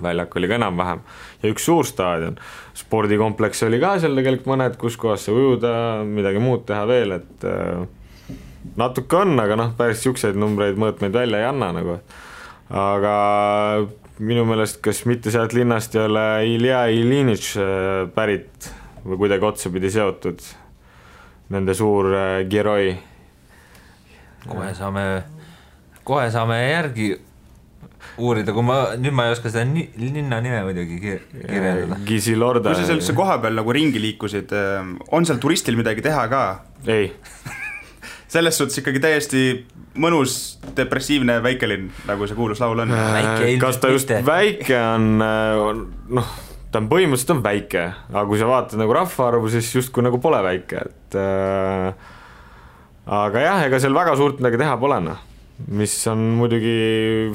väljak oli ka enam-vähem ja üks suur staadion, spordikompleks oli ka seal tegelikult mõned, kus kohas see ujuda, midagi muud teha veel, et natuke on, aga noh, päris siukseid numbreid mõõtmeid välja ei anna nagu, aga minu meelest, kas mitte sealt linnast ei ole Ilja Ilinitš pärit või kuidagi otsapidi seotud, nende suur Geroi. Kohe saame järgi uurida, kui nüüd ma ei oska seda linna nime muidugi kirjeldada. Gisilorda. Kui sa seal üldse koha peal nagu ringi liikusid, on seal turistil midagi teha ka? Ei. Selles suhtes ikkagi täiesti mõnus depressiivne väikelinn, nagu see kuulus laul on. Kas ta just väike on, noh, ta on põhimõtteliselt on väike, aga kui sa vaatad nagu rahvaarvu, siis justkui nagu pole väike, et aga jah, ega seal väga suurt midagi teha polena, mis on muidugi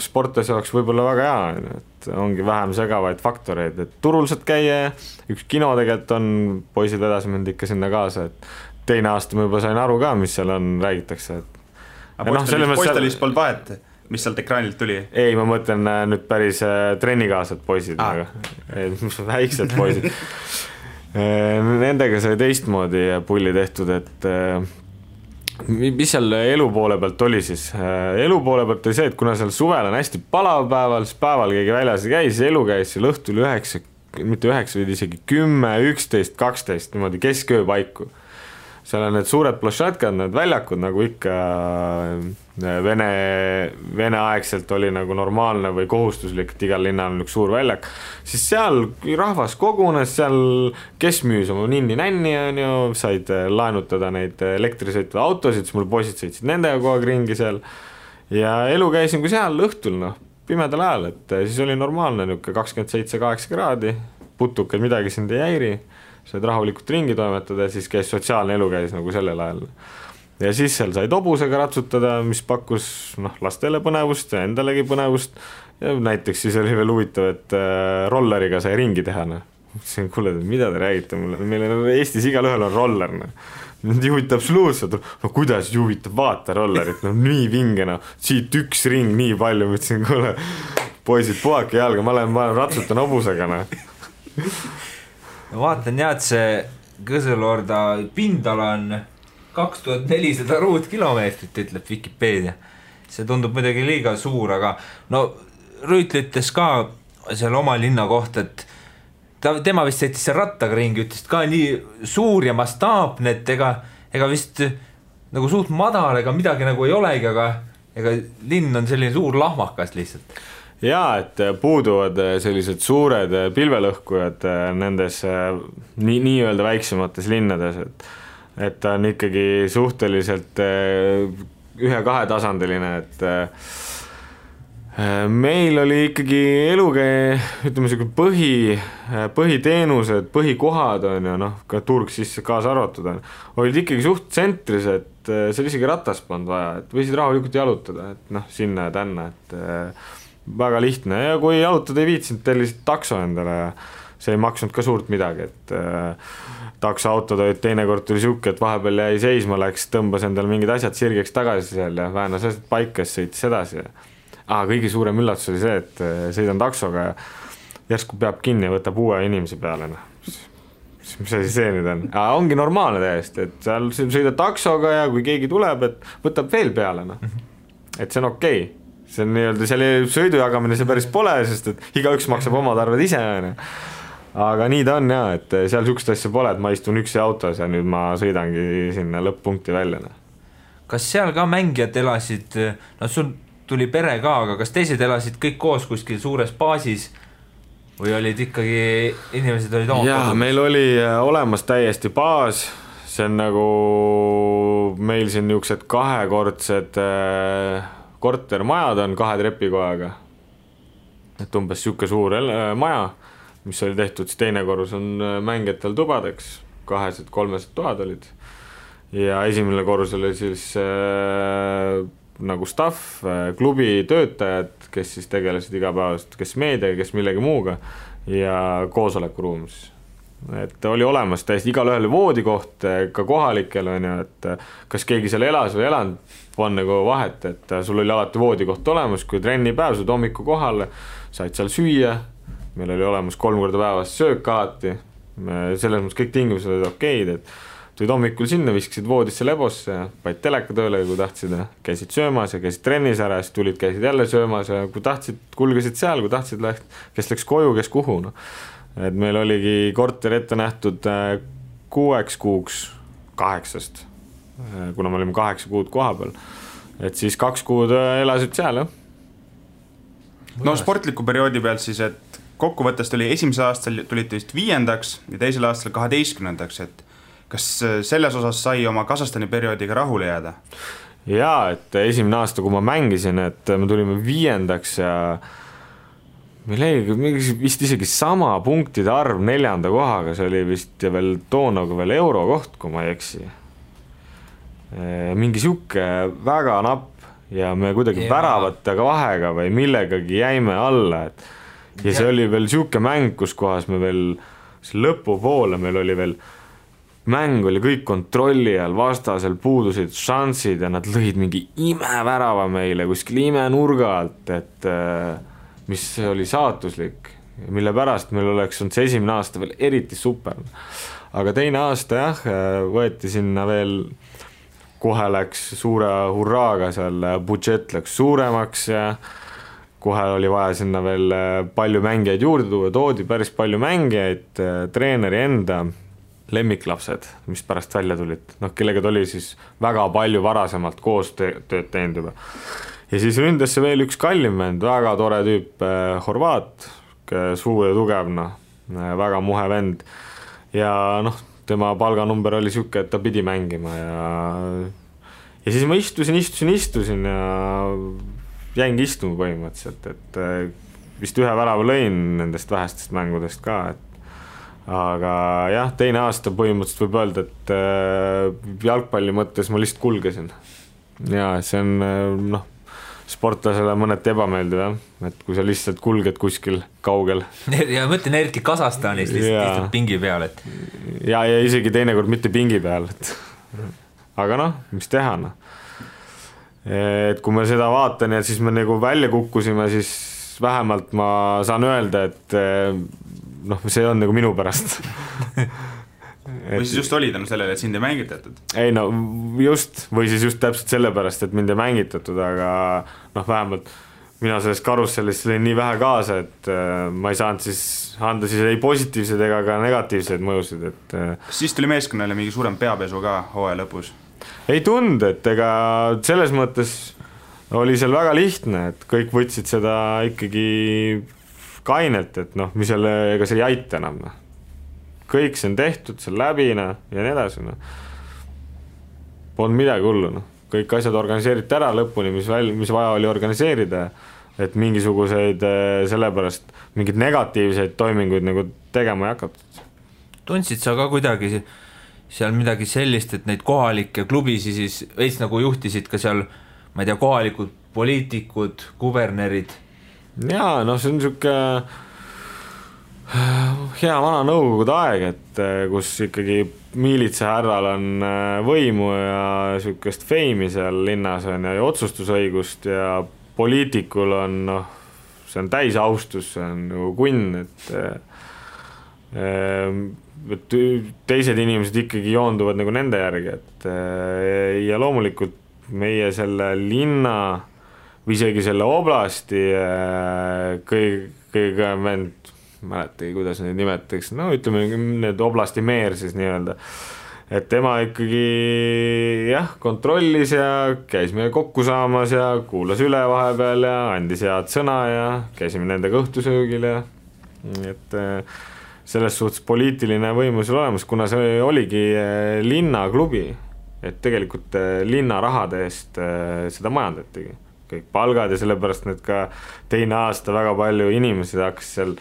sportlase jaoks võib-olla väga hea, et ongi vähem segavaid faktoreid, et turul saad käia, üks kino tegelikult on, poisid vedas mind ikka sinna kaasa, et teine aasta ma juba sain aru ka, mis seal on, räägitakse, et aga poistelis polnud vahet, mis sealt ekraanilt tuli? Ei, ma mõtlen nüüd päris trennikaasad poisid, väiksed poisid. Nendega sai teistmoodi pulli tehtud, et mis seal elu poole pealt oli siis? Elu poole pealt oli see, et kuna seal suvel on hästi palav päeval, siis päeval keegi väljas ei käi, siis elu käis seal õhtul 9, mitte 9, vaid isegi 10, 11, 12, niimoodi kesköö paiku. Seal on need suured plošatkad, need väljakud, nagu ikka Vene aegselt oli nagu normaalne või kohustuslik, et igal linnal on üks suur väljak, siis seal rahvas kogunes, seal kes müüs oma ninni-nänni, on ju, said laenutada neid elektrisõitva autosid, siis mul poisid sõitsid nendega kogu aeg ringi seal ja elu käisin kui seal õhtul, noh, pimedal ajal, et siis oli normaalne niuke 27-8 kraadi, putukad midagi sind ei häiri, said rahulikult ringi toimetada ja siis käis sotsiaalne elu käis nagu sellel ajal. Ja siis seal sai hobusega ratsutada, mis pakkus lastele põnevust ja endalegi põnevust. Ja näiteks siis oli veel huvitav, et rolleriga sai ringi teha. Mõtlesin, kuule, mida te räägite mulle? Meil on Eestis igal ühel on roller. Mind juhitab absoluutselt. No kuidas juhitab? Vaata rollerit. No nii vinge. Siit üks ring nii palju. Mõtlesin, kuule, poisid, puhake jalga. Ma lähen ratsutan hobusega. Vaatan jah, et see Kõselorda pindala on 2400 ruutkilomeetrit, ütleb Wikipedia. See tundub midagi liiga suur, aga no Rüütl ütles ka seal oma linna kohta, et tema vist sõitis seal rattaga ringi, ütles ka nii suur ja mastaapne, et ega vist nagu suht madal, ega midagi nagu ei olegi, aga ega linn on selline suur lahmakas lihtsalt. Jaa, et puuduvad sellised suured pilvelõhkujad nendes nii-öelda väiksemates linnades, et ta on ikkagi suhteliselt 1-2 tasandiline, et meil oli ikkagi elukäe, ütleme selline põhiteenused, põhikohad on ju, ka turg sisse kaasa arvatud on, olid ikkagi suht tsentris, et seal isegi ratast polnud vaja, et võisid rahulikult jalutada, et sinna ja tänna, et väga lihtne ja kui jalutada ei viitsinud, tellisid takso endale ja see ei maksnud ka suurt midagi, et taksoautod olid teinekord tuli siuke, et vahepeal jäi seisma, läks, tõmbas endale mingid asjad sirgeks tagasi seal ja vähenas asjad paika, sõitis edasi. Kõige suurem üllatus oli see, et sõidan taksoga ja järsku peab kinni ja võtab uue inimese peale. Mis asi see nüüd on? Ongi normaalne täiesti, et seal sõidad taksoga ja kui keegi tuleb, et võtab veel peale. Et see on okei. See on nii-öelda selle sõidu jagamine see päris pole, sest et igaüks maksab omad arved ise. Aga nii ta on jah, et seal sükst asja pole, et ma istun üksi autos ja nüüd ma sõidangi sinna lõpp-punkti välja. Kas seal ka mängijad elasid, sul tuli pere ka, aga kas teised elasid kõik koos kuskil suures baasis või olid ikkagi inimesed olid oma? Jaa, meil oli olemas täiesti baas, see on nagu meil siin niisugused kahekordsed kortermajad on 2 trepikojaga, et umbes siuke suur maja, mis oli tehtud, siis teine korrus on mängijatel tubadeks, 200-300 toad olid ja esimene korrus oli siis nagu staff, klubi töötajad, kes siis tegelesid igapäevast, kes meediaga, kes millegi muuga ja koosolekuruum siis. Et oli olemas täiesti igalühel voodikoht ka kohalikel on ju, et kas keegi seal elas või elanud, on nagu vahet, et sul oli alati voodikoht olemas, kui trennipäev, saad hommiku kohale, said seal süüa, meil oli olemas 3 korda päevas söök alati, selles mõttes kõik tingimused olid okeid, et tulid hommikul sinna, viskasid voodisse lebosse ja paid teleka tööle, kui tahtsid, käisid söömas ja käisid trennis ära, siis tulid, käisid jälle söömas ja kui tahtsid, kulgesid seal, kui tahtsid, kes läks koju, kes kuhu. No. Et meil oligi korter ette nähtud 6 kuuks 8, kuna me olime 8 kuud koha peal. Et siis 2 kuud elasid seal, jah. No sportliku perioodi pealt siis, et kokkuvõttest oli esimesel aastal tulid vist 5. ja teisel aastal 12. et kas selles osas sai oma Kasahstani perioodiga rahule jääda? Jaa, et esimene aasta, kui ma mängisin, et me tulime 5. ja meil oli vist isegi sama punktide arv 4. kohaga, see oli vist ja veel toonaga veel eurokoht, kui ma ei eksi. Mingi siuke väga napp ja me kuidagi väravatega vahega või millegagi jäime alla, et ja see oli veel siuke mäng, kus kohas me veel lõpupoole meil oli veel mäng oli kõik kontrolli all, vastasel puudusid šansid ja nad lõid mingi imevärava meile kuskil imenurga alt, et mis oli saatuslik, mille pärast meil oleks olnud see esimene aasta veel eriti super. Aga teine aasta jah, võeti sinna veel, kohe läks suure hurraaga seal, budžet läks suuremaks ja kohe oli vaja sinna veel palju mängijaid juurde tuua, toodi päris palju mängijaid, treeneri enda lemmiklapsed, mis pärast välja tulid, kellega oli siis väga palju varasemalt koos tööd teinud juba. Ja siis ründasse veel üks kallim vend, väga tore tüüp, horvaat, suur ja tugev, väga muhe vend ja tema palganumber oli siuke, et ta pidi mängima ja siis ma istusin ja jäingi istuma põhimõtteliselt, et vist ühe värava lõin nendest vähestest mängudest ka, et aga jah, teine aasta põhimõtteliselt võib öelda, et jalgpalli mõttes ma lihtsalt kulgesin ja see on sportlasele mõneti ebameeldiv jah, et kui sa lihtsalt kulged kuskil kaugel ja mõtlen eriti Kasahstanis lihtsalt pingi peal, et ja isegi teinekord mitte pingi peal, et aga mis teha et kui ma seda vaatan ja siis me nagu välja kukkusime, siis vähemalt ma saan öelda, et see on nagu minu pärast või siis just olid sellele, et sind ei mängitatud? Ei just, või siis just täpselt sellepärast, et mind ei mängitatud, aga vähemalt mina sellest karussellist lõin nii vähe kaasa, et ma ei saanud siis anda siis ei positiivseid ega ka negatiivseid mõjusid, et siis tuli meeskonnale mingi suurem peapesu ka hooaja lõpus? Ei tund, et ega selles mõttes oli seal väga lihtne, et kõik võtsid seda ikkagi kainelt, et mis jälle, ega see ei aita enam. Kõik see on tehtud, see läbi ja nii edasi. Polnud midagi hullu. Kõik asjad organiseeriti ära lõpuni, mis vaja oli organiseerida, et mingisuguseid sellepärast mingeid negatiivseid toiminguid nagu tegema ei hakatud. Tundsid sa ka kuidagi seal midagi sellist, et neid kohalikke klubisi siis veits nagu juhtisid ka seal, ma ei tea, kohalikud poliitikud, kubernerid? Jaa, see on siuke hea vana nõukogude aeg, et kus ikkagi miilitsa härral on võimu ja siukest feimi seal linnas on ja otsustusõigust ja poliitikul on, see on täis austus, see on nagu kunn, et teised inimesed ikkagi joonduvad nagu nende järgi, et ja loomulikult meie selle linna või isegi selle oblasti kõige vend, mäletagi, kuidas neid nimetaks, ütleme need oblasti meer siis nii-öelda, et tema ikkagi jah, kontrollis ja käis meil kokku saamas ja kuulas üle vahepeal ja andis head sõna ja käisime nendega õhtusöögil ja et selles suhtes poliitiline võimu seal olemas, kuna see oligi linnaklubi, et tegelikult linna rahade eest seda majandatigi. Kõik palgad ja sellepärast need ka teine aasta väga palju inimesed hakkas seal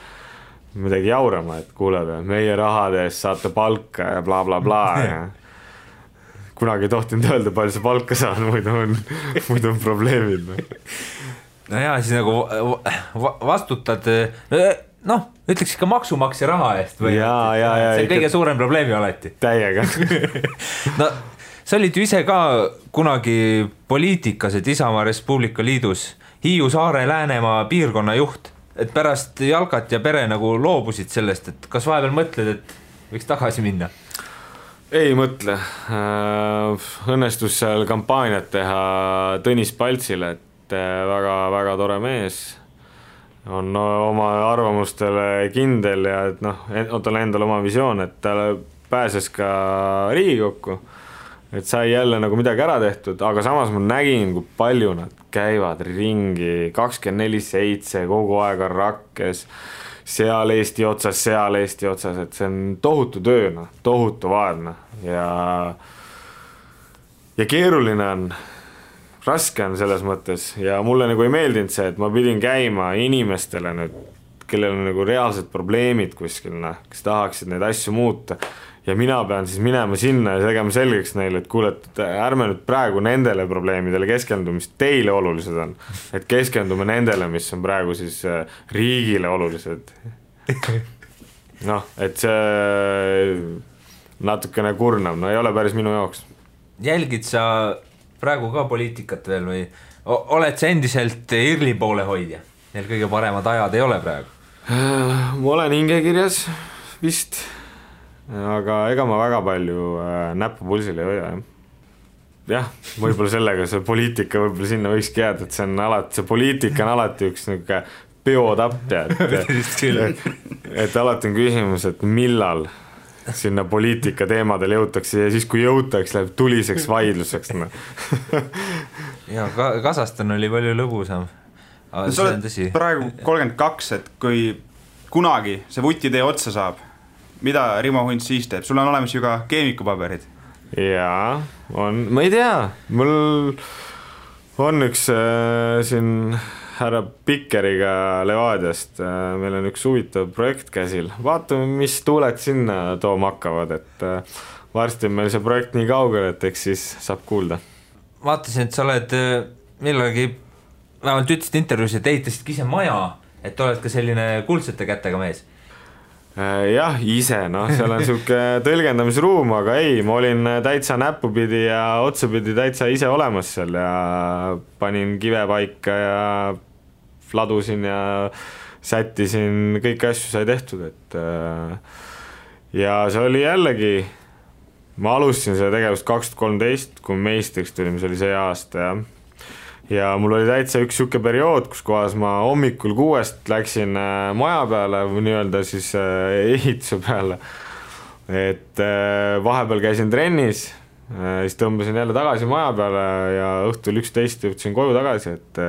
midagi jaurama, et kuuleb, meie rahade eest saate palka ja bla bla bla ja kunagi ei tohtinud öelda, palju sa palka saad, muidu on probleemid. No jaa, siis nagu vastutad, noh, ütleks ikka maksumaksja raha eest või? See on kõige suurem probleemi alati. Täiega. No, sa olid ju ise ka kunagi poliitikas, et Isamaa Res Publica Liidus Hiiu Saare Läänemaa piirkonna juht, et pärast Jalkat ja Pere nagu loobusid sellest, et kas vahepeal mõtled, et võiks tagasi minna? Ei mõtle. Õnnestus seal kampaaniat teha Tõnis Paltsile, et väga tore mees. On oma arvamustele kindel ja et noh, tal endal oma visioon, et ta pääses ka Riigikokku, et sai jälle nagu midagi ära tehtud, aga samas ma nägin, kui palju nad käivad ringi 24/7 kogu aeg on rakkes, seal Eesti otsas, et see on tohutu töö, tohutu vaadne ja keeruline on, raske on selles mõttes ja mulle nagu ei meeldinud see, et ma pidin käima inimestele nüüd, kellel on nagu reaalsed probleemid kuskil, kes tahaksid neid asju muuta ja mina pean siis minema sinna ja tegema selgeks neile, et kuule, et ärme nüüd praegu nendele probleemidele keskendu, mis teile olulised on, et keskendume nendele, mis on praegu siis riigile olulised. Noh, et see natukene kurnab, no ei ole päris minu jaoks. Jälgid sa praegu ka poliitikat veel või oled sa endiselt IRL-i poole hoidja? Neil kõige paremad ajad ei ole praegu? Ma olen hingekirjas vist, aga ega ma väga palju näppu pulsil ei hoia. Jah, võib-olla sellega see poliitika võib-olla sinna võikski jääda, et see poliitika on alati üks niisugune peotapp, et alati on küsimus, et millal sinna poliitika teemadel jõutakse ja siis kui jõutakse, läheb tuliseks vaidluseks. Ja Kasahstan oli palju lõbusam. Sa oled praegu 32, et kui kunagi see vutitee otsa saab, mida Rimo Hunt siis teeb? Sul on olemas ju ka keemikupaberid. Jaa, on, ma ei tea, mul on üks siin härra Pikkeriga Levadiast, meil on üks huvitav projekt käsil. Vaatame, mis tuuled sinna tooma hakkavad, et varsti on meil see projekt nii kaugel, et eks siis saab kuulda. Vaatasin, et sa oled millalgi, vähemalt ütlesid intervjuus, et ehitasidki ise maja, et oled ka selline kuldsete kätega mees. Jah, ise, seal on siuke tõlgendamisruum, aga ei, ma olin täitsa näpupidi ja otsapidi täitsa ise olemas seal ja panin kive paika ja ladusin ja sättisin, kõik asju sai tehtud, et ja see oli jällegi, ma alustasin selle tegevust 2013, kui meistriks tulime, see oli see aasta ja mul oli täitsa üks siuke periood, kus kohas ma hommikul 6 läksin maja peale või nii-öelda siis ehituse peale, et vahepeal käisin trennis, siis tõmbasin jälle tagasi maja peale ja õhtul 11 jõudsin koju tagasi, et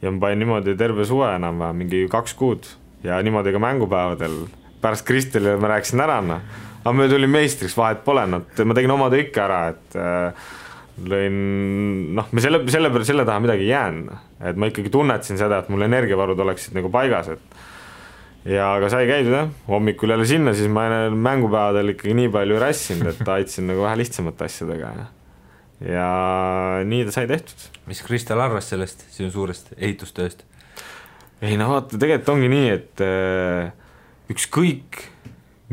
ja ma panin niimoodi terve suve enam mingi 2 kuud ja niimoodi ka mängupäevadel pärast Kristelile ma rääkisin ära, aga me tulin meistriks, vahet pole, ma tegin oma töö ikka ära, et lõin, me selle taha midagi jään, et ma ikkagi tunnetasin seda, et mul energiavarud oleksid nagu paigas, et ja aga sai käidud, hommikul jälle sinna, siis ma mängupäevadel ikkagi nii palju rassinud, et aitsin nagu vähe lihtsamate asjadega ja nii ta sai tehtud. Mis Kristel arvas sellest sinu suurest ehitustööst? Ei vaata, tegelikult ongi nii, et ükskõik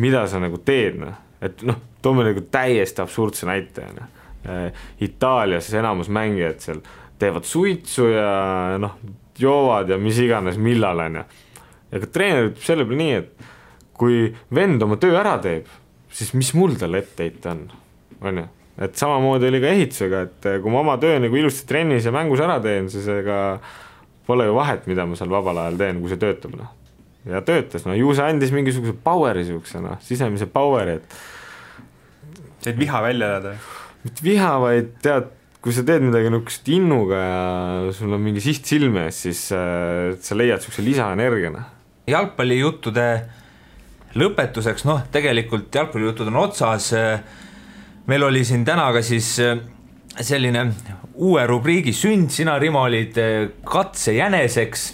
mida sa nagu teed, et toome nagu täiesti absurdse näite, Itaalias enamus mängijad seal teevad suitsu ja joovad ja mis iganes millal on ja ka treener ütleb selle peale nii, et kui vend oma töö ära teeb, siis mis mul talle etteheita on ju, et samamoodi oli ka ehitusega, et kui ma oma töö nagu ilusti trennis ja mängus ära teen, siis ega pole ju vahet, mida ma seal vabal ajal teen, kui see töötab ja töötas, ju see andis mingisuguse poweri siuksena, sisemise poweri, et said viha välja elada? Mitte viha, vaid tead, kui sa teed midagi nukest innuga ja sul on mingi siht silme ees, siis sa leiad siukse lisaenergiana. Jalgpallijuttude lõpetuseks, tegelikult jalgpallijutud on otsas, meil oli siin täna ka siis selline uue rubriigi sünd, sina Rimo olid katsejäneseks,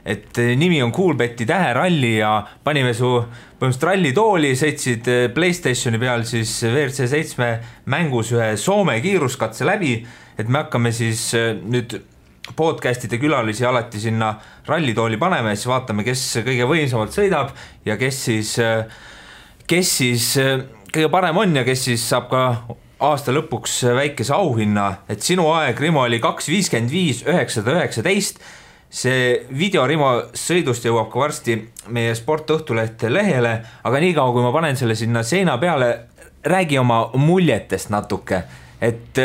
et nimi on Coolbeti täheralli ja panime su põhimõtteliselt rallitooli, sõitsid PlayStationi peal siis WRC 7 mängus ühe Soome kiiruskatse läbi, et me hakkame siis nüüd podcastide külalisi alati sinna rallitooli paneme ja siis vaatame, kes kõige võimsamalt sõidab ja kes siis kõige parem on ja kes siis saab ka aasta lõpuks väikese auhinna, et sinu aeg, Rimo, oli 2.55.919. See video Rimo sõidust jõuab ka varsti meie Sportõhtulehte lehele, aga niikaua, kui ma panen selle sinna seina peale, räägi oma muljetest natuke, et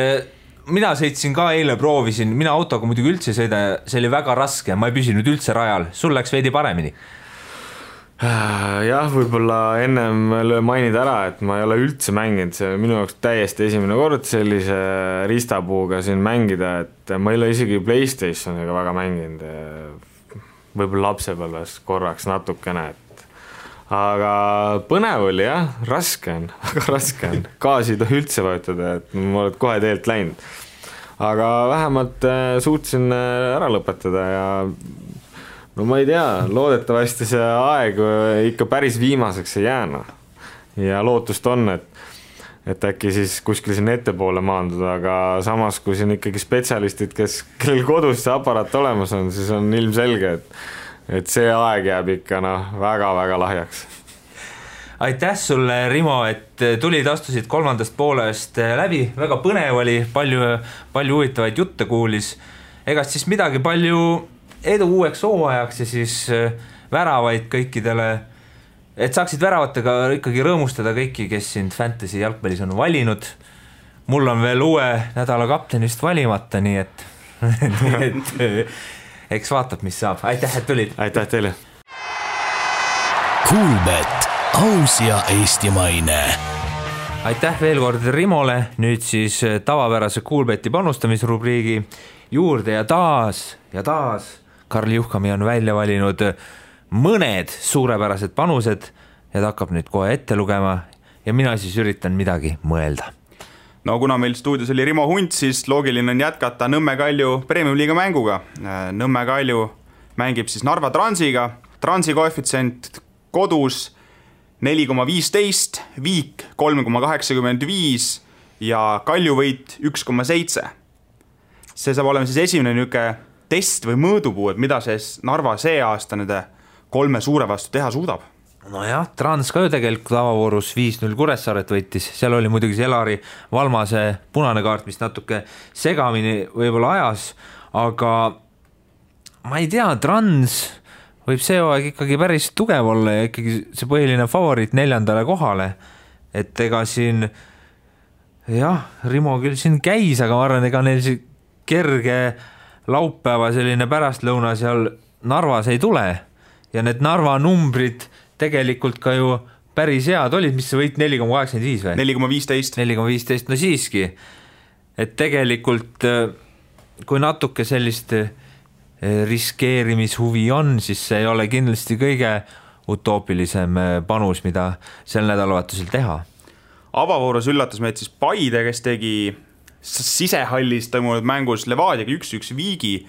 mina sõitsin ka eile, proovisin, mina autoga muidugi üldse sõida, see oli väga raske, ma ei püsinud üldse rajal, sul läks veidi paremini. Jah, võib-olla ennem mainida ära, et ma ei ole üldse mänginud, see minu jaoks täiesti esimene kord sellise ristapuuga siin mängida, et ma ei ole isegi PlayStationiga väga mänginud, võib-olla lapsepõlves korraks natukene, et aga põnev oli jah, raske on, väga raske on, gaasi ei tohi üldse vajutada, et ma olen kohe teelt läinud, aga vähemalt suutsin ära lõpetada ja no ma ei tea, loodetavasti see aeg ikka päris viimaseks ei jääna ja lootust on, et äkki siis kuskil siin ettepoole maanduda, aga samas kui siin ikkagi spetsialistid, kellel kodus see aparaat olemas on, siis on ilmselge, et see aeg jääb ikka väga-väga lahjaks. Aitäh sulle, Rimo, et tulid, astusid kolmandast poolest läbi, väga põnev oli, palju huvitavaid jutte kuulis, egast siis midagi, palju edu uueks hooajaks ja siis väravaid kõikidele, et saaksid väravatega ikkagi rõõmustada kõiki, kes sind fantasy jalgpallis on valinud. Mul on veel uue nädala kaptenist valimata, nii et eks vaatab, mis saab. Aitäh, et tulid. Aitäh teile. Coolbet, aus ja eestimaine. Aitäh veel kord Rimole, nüüd siis tavapärase Coolbeti panustamisrubriigi juurde ja taas Karl Juhkami on välja valinud mõned suurepärased panused ja ta hakkab nüüd kohe ette lugema ja mina siis üritan midagi mõelda. No kuna meil stuudios oli Rimo Hunt, siis loogiline on jätkata Nõmme Kalju Premium-liiga mänguga. Nõmme Kalju mängib siis Narva Transiga, Transi koefitsient kodus 4,15, Viik 3,85 ja Kalju võit 1,7. See saab olema siis esimene niuke test või mõõdupuu, et mida see Narva see aasta nende 3 suure vastu teha suudab. No jah, Trans ka ju tegelikult avavoorus 5-0 Kuressaaret võitis, seal oli muidugi see Elari Valmase punane kaart, mis natuke segamini võib-olla ajas, aga ma ei tea, Trans võib see aeg ikkagi päris tugev olla ja ikkagi see põhiline favoriit 4. kohale, et ega siin jah, Rimo küll siin käis, aga ma arvan, ega neil see kerge laupäeva selline pärastlõuna seal Narvas ei tule ja need Narva numbrid tegelikult ka ju päris head olid, mis see võit 4,85 või? 4,15, no siiski, et tegelikult kui natuke sellist riskeerimishuvi on, siis see ei ole kindlasti kõige utoopilisem panus, mida sel nädalavahetusel teha. Avavoorus üllatas meid siis Paide, kes tegi sisehallis toimunud mängus Levadiaga 1-1 Viigi.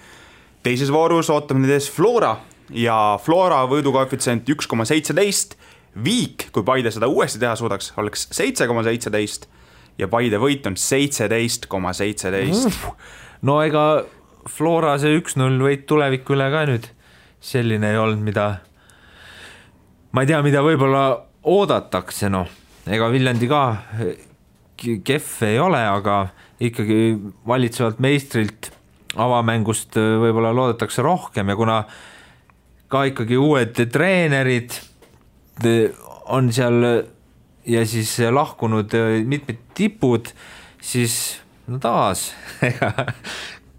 Teises voorus ootame nüüd ees Flora ja Flora võidukoefitsient 1,17. Viik, kui Paide seda uuesti teha suudaks, oleks 7,17 ja Paide võit on 17,17. No ega Flora see 1-0 võit tuleviku üle ka nüüd selline ei olnud, mida ma ei tea, mida võib-olla oodatakse, ega Viljandi ka kehv ei ole, aga ikkagi valitsevalt meistrilt avamängust võib-olla loodetakse rohkem ja kuna ka ikkagi uued treenerid on seal ja siis lahkunud mitmed tipud, siis taas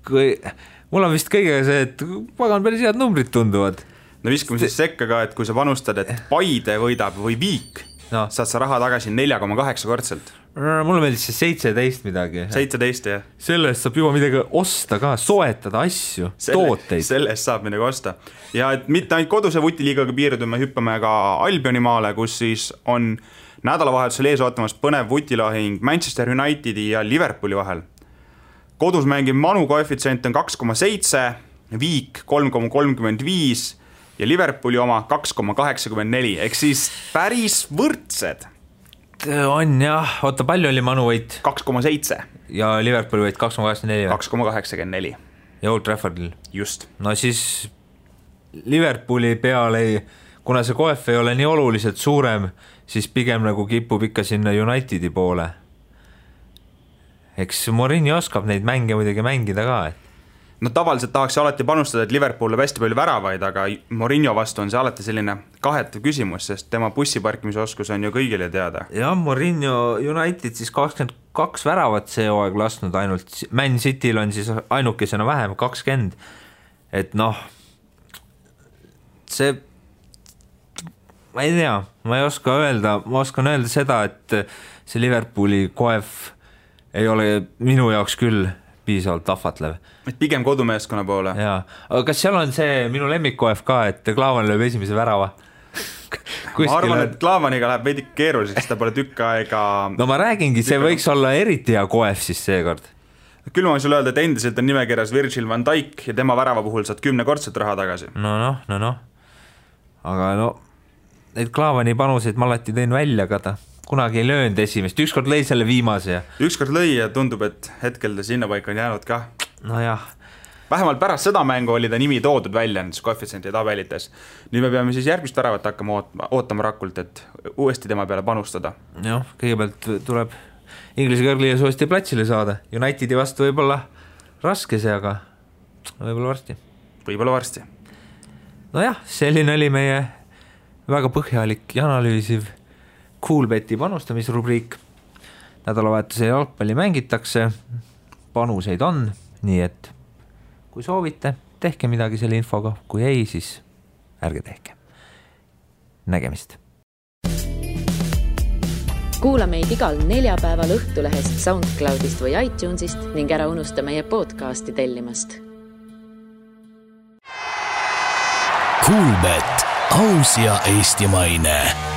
mul on vist kõigega see, et pagan päris head numbrid tunduvad. No viskame siis sekka ka, et kui sa panustad, et Paide võidab või Viik, saad sa raha tagasi 4,8 kordselt. Mulle meeldis see 17 midagi. 17, jah. Sellest saab juba midagi osta ka, soetada asju, tooteid. Sellest saab midagi osta. Ja et mitte ainult koduse vutiliigaga piirdume, hüppame ka Albionimaale, kus siis on nädalavahetusel ees ootamas põnev vutilahing Manchester Unitedi ja Liverpooli vahel. Kodus mängib Manu koefitsient on 2,7, Viik 3,35 ja Liverpooli oma 2,84 ehk siis päris võrdsed. On jah, oota, palju oli Manu võit? 2,7 ja Liverpooli võit 2,84 2,84 ja Old Traffordil. Just. No siis Liverpooli peale, kuna see koef ei ole nii oluliselt suurem, siis pigem nagu kipub ikka sinna Unitedi poole. Eks Mourinho oskab neid mänge muidugi mängida ka, et No tavaliselt tahaks alati panustada, et Liverpool hästi palju väravaid, aga Mourinho vastu on see alati selline kahetav küsimus, sest tema bussiparkimise oskus on ju kõigile teada. Ja Mourinho United siis 22 väravat see hooaeg lasknud ainult, Man Cityl on siis ainukesena vähem 20, et noh, see, ma ei tea, ma ei oska öelda, ma oskan öelda seda, et see Liverpooli koef ei ole minu jaoks küll piisavalt ahvatlev. Et pigem kodumeeskonna poole. Jaa, aga kas seal on see minu lemmikkoef ka, et Klaavan lööb esimese värava? Ma arvan, et Klaavaniga läheb veidi keeruliseks, ta pole tükk aega... No ma räägingi, see võiks olla eriti hea koef siis seekord. Küll ma võin sulle öelda, et endiselt on nimekirjas Virgil van Dijk ja tema värava puhul saad 10-kordselt raha tagasi. No. Aga no, neid Klaavani panuseid ma alati tõin välja, aga ta kunagi ei löönud esimest, ükskord lõi selle viimase. Ükskord lõi ja tundub, et hetkel ta sinna paika on jäänud ka. No jah. Vähemalt pärast seda mängu oli ta nimi toodud välja nendes koefitsiendi tabelites. Nüüd me peame siis järgmist väravat hakkama ootama Rakult, et uuesti tema peale panustada. Jah, kõigepealt tuleb Inglise kõrgliigas uuesti platsile saada. Unitedi vastu võib-olla raske see, aga võib-olla varsti. Nojah, selline oli meie väga põhjalik ja analüüsiv Coolbeti panustamisrubriik. Nädalavahetuse jalgpalli mängitakse, panuseid on, nii et kui soovite, tehke midagi selle infoga, kui ei, siis ärge tehke. Nägemist. Kuula meid igal neljapäeval Õhtulehest, SoundCloudist või iTunesist ning ära unusta meie podcasti tellimast. Coolbet, aus ja eestimaine.